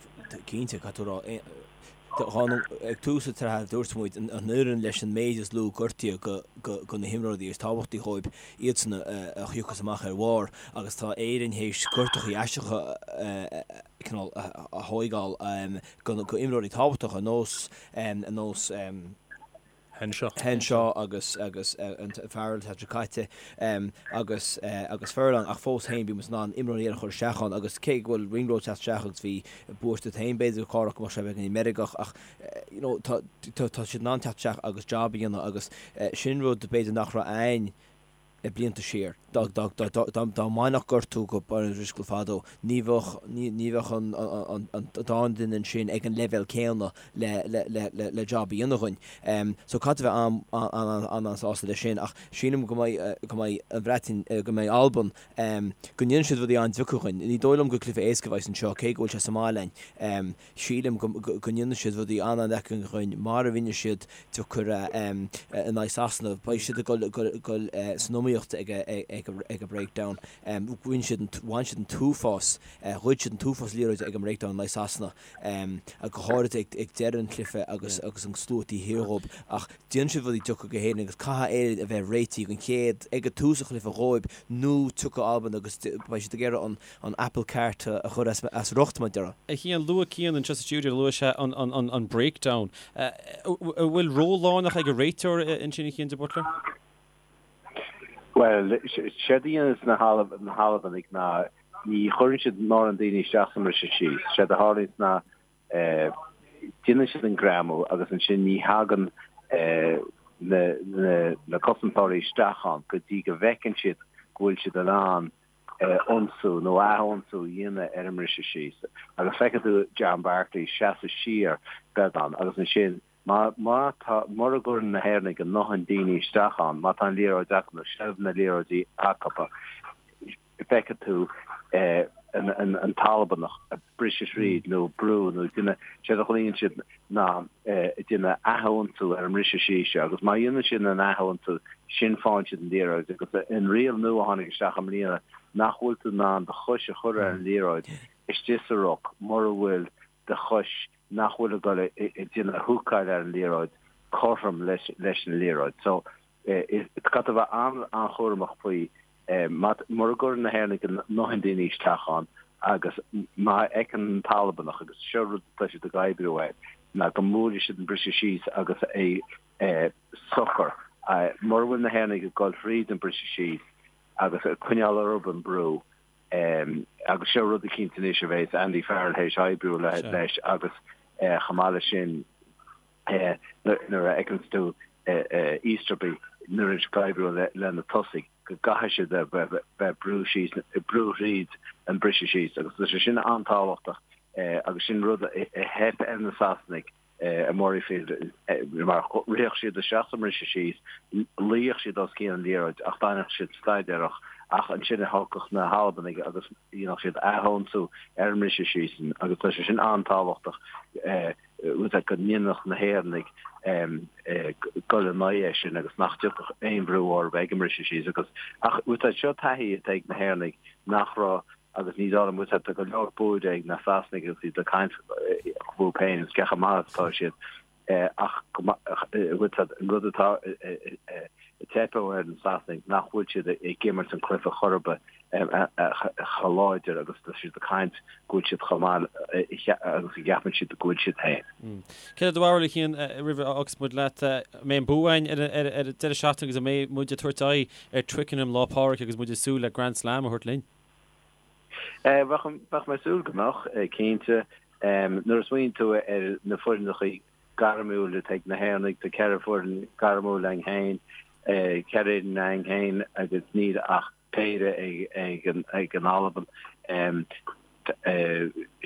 S2: cinnte, caithfidh tú a rá, ag tús na sraithe dúirt muid, an fhoireann leis an méid is lú gortaithe go na himreoirí is tábhachtaí dhóibh, iadsan a thiocfas amach ar bharr agus tá Éirinn théis gortachaí aisteacha cineál a thóigeáil go imreoirí tábhachtacha ar nós, ar nós.
S3: Henshaw.
S2: Henshaw agus agus an Farrell an tseachtain seo caite agus agus Furlong ach fós féin bhí muid in ann imreoirí eile a chur isteach ann agus cé go bhfuil Ringrose teacht isteach agus bhí buairt duit féin b'fhéidir Cárthach go mbeadh sé beagáinín meirgeach ach you know tá tá siad in ann teacht isteach agus job a dhéanamh agus sin rud b'fhéidir nach raibh a'ainn blianta siar. Dá mbainfeadh gortú go Brian O'Driscoll fadó, ní bheadh ní bheadh an dá duine ansin ag an leibhéal céanna le job a dhéanamh dhuinn. So caithfidh tú a bheith an-an-sásta leis sin ach sílim go mbeidh go mbeidh an Bhreatain, go mbeidh Albain, go ndéanfaidh siad rudaí an-deacair dhuinn. Ní dóigh liom gur cluiche éasca a bheas anseo cé go bhfuil sé sa mbaile a'ainn. Sílim go ndéanfaidh siad rudaí an-an-deacair dhuinn mar a rinne siad deacair in aghaidh Sasana. Beidh siad ag dul san iomaíocht ag an breakdown. Bhain siad an t-uafás, ghoid siad an t-uafás liathróide ag an mbreakdown in aghaidh Sasana, go háirid ag deireadh an chluiche agus an slua taobh thiar dhóibh. Ach déanfaidh siad rudaí deacair go hÉirinn agus caithfidh Éirinn a bheith réitithe don chéad, ag tús an chluiche dhóibh nó tiocfaidh Albain agus beidh siad ag iarraidh an an apple cart a chur as riocht, mar a déarfá.
S1: A Chian, luaigh Cian anseo sa stiúideo, luaigh sé an breakdown. An bhfuil ról lárnach ag an réiteoir ansin, a Chian de Buitléir?
S4: Bhuel, séard a dhéananns na hAlbanaigh ná ní chuireann siad mórán daoine isteach sa mbriseadh síos. Séard a tharlaíonns ná déanann siad an greamú agus ansin ní thagann na cosantóirí isteach ann go dtí go bhfeiceann siad go bhfuil siad in ann ionsú nó ath-ionsú a dhéanamh ar an mbriseadh síos agus feicfidh tú John Barclay seasamh siar beagán agus ansin má má tá mura gcuireann na hÉireannaigh a ndóthain daoine isteach ann, má tá an liathróid acu nó seilbh na liathróidí acu, feicfidh tú an tAlbanach ag briseadh thríd nó brú nó déanamh, séard a ghlaonn siad ná déanamh ath-ionsú ar an mbriseadh síos seo agus má dhéanann siad an ath-ionsú sin faigheann siad an liathróid agus an riail nua a tháinig isteach i mbliana nach bhfuil tú in ann do chois a chur ar an liathróid istigh sa ruc mura bhfuil do chois nach bhfuil ag dul ag déanamh húcáil ar an liathróid cothrom leis an liathróid. So caithfidh tú a bheith an-an-chúramach faoi Mura gcuireann na hÉireannaigh a ndóthain daoine isteach ann agus má fheiceann an tAlbanach, agus seo rud atá siad ag oibriú air, ná go mbuailfidh siad an briseadh síos agus é socair. Mura bhfuil na hÉireannaigh ag dul thríd an briseadh síos agus ag coinneáil orthu an brú. Agus seo rud eicínt anois a bheas Andy Farrell théis oibriú leis agus chomh maith leis sin nuair a fheiceanns tú Easterby nuair atá ag oibriú le na tosaigh go gcaithfidh siad a bheith ag brú síos, brú thríd an briseadh síos agus tá sé sin an-tábhachtach agus sin rud a theip ar na Sasanaigh i Murrayfield mar ritheadh siad isteach sa mbriseadh síos, luíodh siad os cionn an liathróid ach d'fhanadh siad staidéarach ach ansin a thiocfadh na hAlbanaigh agus dhéanfadh siad ath-ionsú ar an mbriseadh síos sin agus tá sé sin an-tábhachtach rud go ndéanfadh na hÉireannaigh dul in aghaidh é sin agus nach dtiocfadh aon bhrú orthu ag an mbriseadh síos agus ach seo taithí atá ag na hÉireannaigh nach raibh Agus ní dóigh liom, bhfuil tá go leor buaidh ag na Sasanaigh agus iad ag caint fúthu féin agus cé chomh maith is atá siad ach bhfuil an rud atá ag teipeadh ar na Sasanaigh nach bhfuil siad ag imirt an cluiche chor ar bith chomh láidir agus tá siad ag caint go bhfuil siad chomh maith agus a gceapann siad go bhfuil siad féin.
S1: Céard é do bharúil a Chian roimh a fhágas muid leat? An mbeidh an bua againn ar an deireadh seachtaine agus an mbeidh muid ag tabhairt aghaidh ar Twickenham Lá Pádraig agus muid ag súil le Grand Slam a thabhairt linn?
S4: Bheadh mé ag súil go mbeadh, cinnte. Nuair a smaoiníonn tú ar na foireannachaí gairmiúil atá ag na hÉireannaigh, tá 4 foireann gairmiúil againn féin, 4 fhoireann againn féin agus níl ach péire ag an Albain.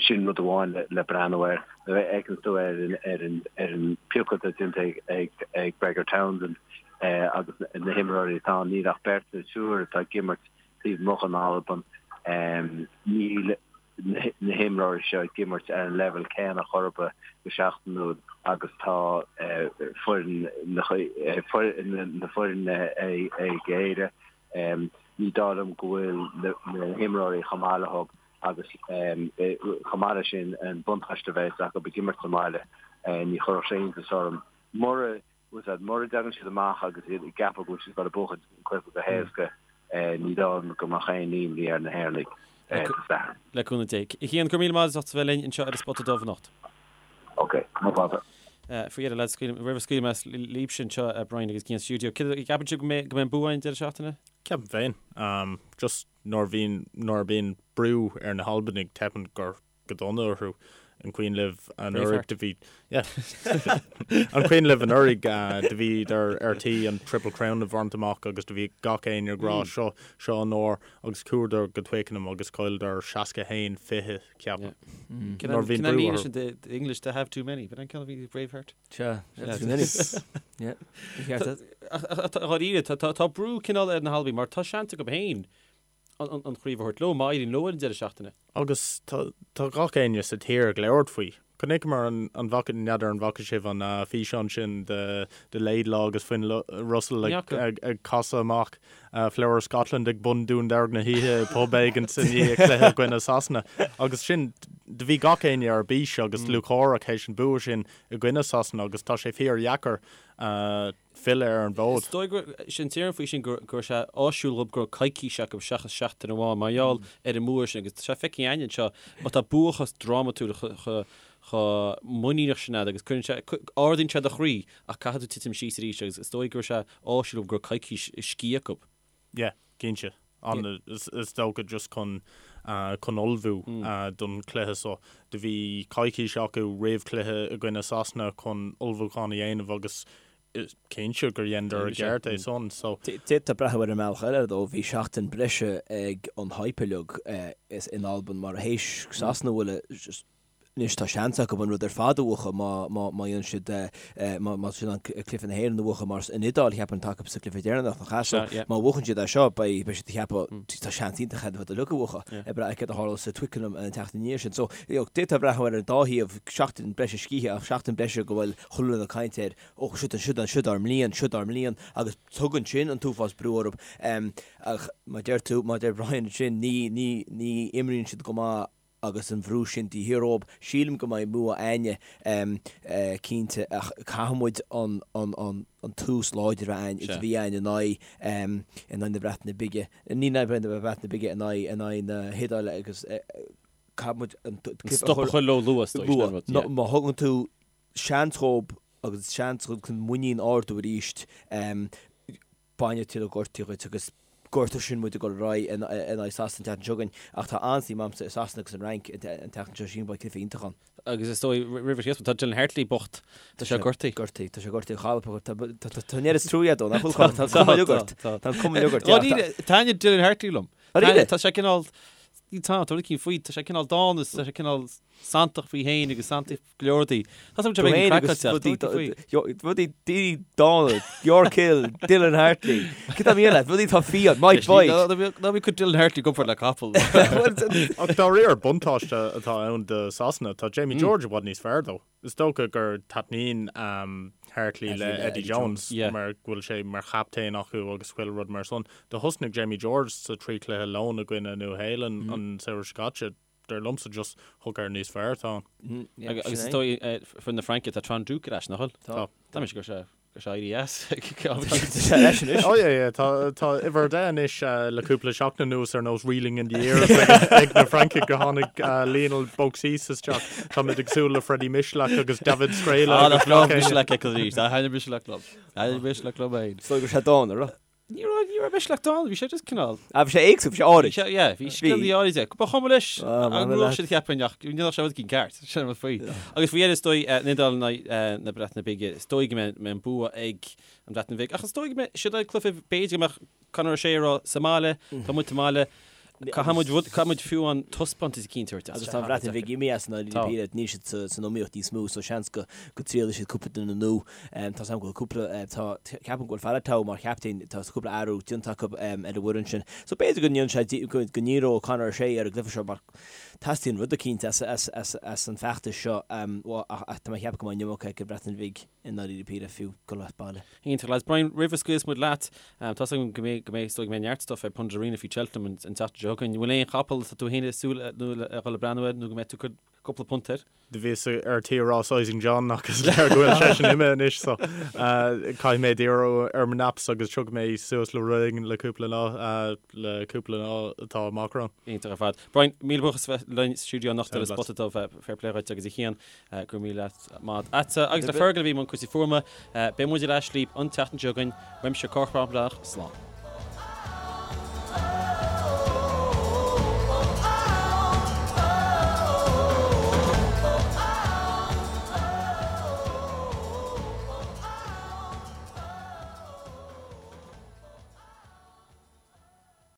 S4: Sin rud amháin le breathnú air. Nuair a fheiceann tú ar an piocadh atá déanta ag Gregor Townsend agus na himreoirí atá ann, níl ach beirt nó triúr atá ag imirt taobh amuigh den Albain. Níl na himreoirí seo ag imirt ar an leibhéal céanna chor ar bith go seachtainiúil agus tá foireann na foirne ag Éire. Ní dóigh liom go bhfuil na himreoirí chomh maith leo agus chomh maith leis sin an buntáiste a bheas acu ag imirt sa mbaile, ní chuirfeadh sé iontas orm mura Mura dtagann siad amach agus iad ag ceapadh go bhfuil siad ag dul a buachan an cluiche go héasca, ní dóigh liom go mbeadh aon imní ar na hÉireannaigh Dé
S1: Sathairn. Le cúnamh Dé. A Chian, go raibh míle maith agat as ucht a bheith linn anseo ar An Spota Dubh anocht.
S4: Ok, no bother.
S1: Faoi dheireadh, lads, roimh a scaoil mé libhse anseo, Brian agus Cian sa stiúideo, céard a gceapann sibh go mbeidh an bua againn an deireadh seachtaine?
S3: Ceapaim féin. Just nuair a bhíonn, nuair a bhíonn brú ar na hAlbanaigh, teipeann go go dona orthu. An cuimhin libh anuraidh do bhí yeah An cuimhin libh anuraidh do bhíodar ar tí an Triple Crown a bhaint amach agus do bhí gach éinne ag rá seo seo an uair agus chuadar go Twickenham agus chailleadar 61 20 ceapaim.
S1: Nuair a bhíonn brú orthu. The English to have too many. B'in an ceann a bhí Braveheart?
S2: Sea, too many. Yeah.
S1: Dháiríre, tá brú cineál ar na hAlbaigh mar tá seans acu féin an chraobh a thabhairt leo, má éiríonn leo ar an deireadh seachtaine.
S3: Agus tá gach éinne sa tír ag labhairt faoi. Chonaiceamar an, an bhfaca, n'fheadar an bhfaca sibh an físeán sin de de Laidlaw agus Finn Russell ag ag casadh amach Flower of Scotland ag bun Dún Dearg na hoíche i bpub éigin i ndiaidh cluiche i gcoinne Sasana. Agus sin, do bhí gach éinne ar bís agus lúcháireach théis an bua sin i gcoinne Sasana agus tá sé fíor dheacair filleadh ar an bhfód.
S1: Is dóigh go sin déarfainn faoi sin go raibh sé áisiúil dhób go raibh coicís acu seachas seachtain amháin mar gheall ar an mbua sin agus tá sé feicthe againn anseo má tá bua chomh drámatúil chomh muiníneach sin agat agus cuireann sé, ardaíonn sé do chroí ach caithfidh tú titim síos arís agus is dóigh go raibh sé áisiúil dhób go raibh coicís scíth acu.
S3: Yeah, cinnte. An, is dócha just chun, chun ullmhú don chluiche so. Do bhí coicís acu roimh chluiche i gcoinne Sasana chun ullmhúchán a dhéanamh agus is cinnte gur dheineadar i gceart é san. So.
S2: D'fhéadfá breathnú ar an mbealach eile though, bhí seachtain breise ag an hype uilig in Albain mar théis Sasana a bhualadh Anois tá seans acu an rud ar fad a bhuachan má dhéanann siad, má tá siad in ann cluiche na hÉireann a bhuachan mar an Iodáil cheapfainn atá acu sa gcluiche deireanach nach ea? So má bhuachann siad é seo beidh siad ag ceapadh tá seans iontach acu an rud uilig a bhuachan ag brath ar céard a tharlós sa Twickenham an tseachtain ina dhiaidh sin. So d'fhéadfá breathnú ar an dá thaobh, seachtain breise scíthe ach seachtain breise go bhfuil chuile dhuine ag caint air, ó siod siod siod ár mbliain, siod ár mbliain agus tugann sin an t-uafás brú orthu. Ach mar deir tú, mar deir Brian ansin, ní, ní, ní imríonn siad go maith agus an bhrú sin de shíor orthu. Sílim go mbeidh bua a'inne cinnte ach caithfidh muid an an an tús láidir a bheith a'inn is a bhí a'inn in aghaidh in aghaidh na Breataine Bige, ní in aghaidh na Breataine Bige, in aghaidh in aghaidh na hIodáile agus caithfidh muid
S1: an stop a chur leo luath, is dóigh, sin an rud, yeah.
S2: Má thugann tú seans dhób agus seans chun muinín ardú arís, bainfidh tuilleadh gortaithe dhuit agus. Gortú sin muid ag dul ar aghaidh in aghaidh Sasana an tseachtain seo chugainn ach tá an-suim a'msa i Sasana agus an Fhrainc an tseachtain seo sílim beidh cluiche iontach ann.
S1: Agus is dóigh roimh an tá Dylan Hartley bocht, tá sé gortaithe.
S2: Gortaithe, tá sé gortaithe a chailp tá tá an oiread is trua dó nach bhfuil tá an cuma uilig ort. Tá an cuma uilig ort.
S1: Taitníonn Dylan Hartley liom. Tá sé cineál tá tá rud éicint faoi, tá sé cineál dána, tá sé cineál santach faoi féin agus santach go leor rudaí. Tá sé beag
S2: craiceáilte. Rudaí daoine dána, York Hill, Dylan Hartley. Cad tá mian leat? Rudaí atá fiáin, Mike Boyd.
S1: Ná bí ag cur Dylan Hartley i gcomparáid le capall.
S3: Ach dáiríre buntáiste atá ann do Sasana, tá Jamie George i bhfad níos fearr dó. Is dócha gur taitníonn Hartley le Eddie Jones mar go bhfuil sé mar chaptaen acu agus chuile rud mar san. Do thosnaigh Jamie George sa trí chluiche lóin i gcoinne Nua Shéalainn an samhradh seo caite. Dar liomsa just hooker níos fearr atá
S1: ann. Agus is dóigh foireann na Fraince tá Trinh-Duc ar ais, nach bhfuil?
S3: Tá.
S1: Tá mise go sé go sé éirí as.
S2: Tá leis anois.
S3: Oh yeah yeah tá tá uimhir 10 anois le cúpla seachtain anuas ar nós reeling in the years ag na Francaigh go tháinig Lionel Beauxis isteach. Táimid ag súil le Freddie Michalak agus David Skrela.
S1: Ah nach breá Michalak ag arís. Tá thaitnigh Michalak liom. Thaitnigh Michalak liom féin.
S2: Is dóigh go raibh sé dána, raibh?
S1: Ní raibh, ní raibh Michalak dána, bhí sé just cineál.
S2: Ah, bhí sé éagsúil, bhí sé áirid.
S1: Bhí sé, yeah, bhí scileanna áirid aige. Ba chuma leis an ngnó sin cheapfainn ach ní raibh sé rud éicint ceart, sin an rud faoi. Agus faoi dheireadh is dóigh, an Iodáil in aghaidh na Breataine Bige, is dóigh go mbeidh an bua ag an Bhreatain Bhig. Ach is dóigh go mbeidh siad ag cluiche, b'fhéidir go mbeadh Conor O'Shea ag rá sa mbaile, tá muid sa mbaile, Caithfidh muid rud, caithfidh muid fiú an taispeántas eicínt a thabhairt.
S2: Agus tá an Bhreatain Bhig imithe as an
S1: Tá.
S2: Níl siad san iomaíocht níos mó, so seans go go dtriailfidh siad cúpla duine nua. Tá 's agam go bhfuil cúpla, tá, ceapaim go bhfuil Faletau mar chaptaen, tá cúpla athrú déanta acu ar an bhfoireann sin. So b'fhéidir go ndéanfaidh sé, go ndíreoidh Conor O'Shea ar an gcluiche seo mar teastaíonn rud eicínt as, as, as, as an bhfeachtas seo. Ach tá mé ag ceapadh go mbeidh an iomarca ag an Bhreatain Bhig i ndáiríre píre fiú dul as baile.
S1: Iontach lads. Brian, roimh a scaoilfeas muid leat, tá's agam go mbeidh, go mbeidh, is dóigh go mbeidh neart stuff ar Pundit Arena faoi Cheltenham an tseachtain seo chugainn. An bhfuil aon chapall atá tú féin ag súil nó le dhul ag breathnú air nó go mbeidh tú ag cur cúpla punt air?
S3: Do bhíos ar tí a rá Sizing John ach is léir go bhfuil seisean imithe anois so caithfidh mé díriú ar mo naps agus tiocfaidh mé suas le rud éigin le cúpla lá, le cúpla lá atá amach romham.
S1: Iontach ar fad. Brian, míle buíochas a bheith linn sa stiúideo anocht ar an Spota Dubh. Fair play dhuit agus a Chian. Go raibh míle maith agatsa. Agus le Fergal a bhí i mbun cúrsaí fuaime. Beidh muid ar ais libh an tseachtain seo chugainn. Uaimse Cormac Breathnach, slán.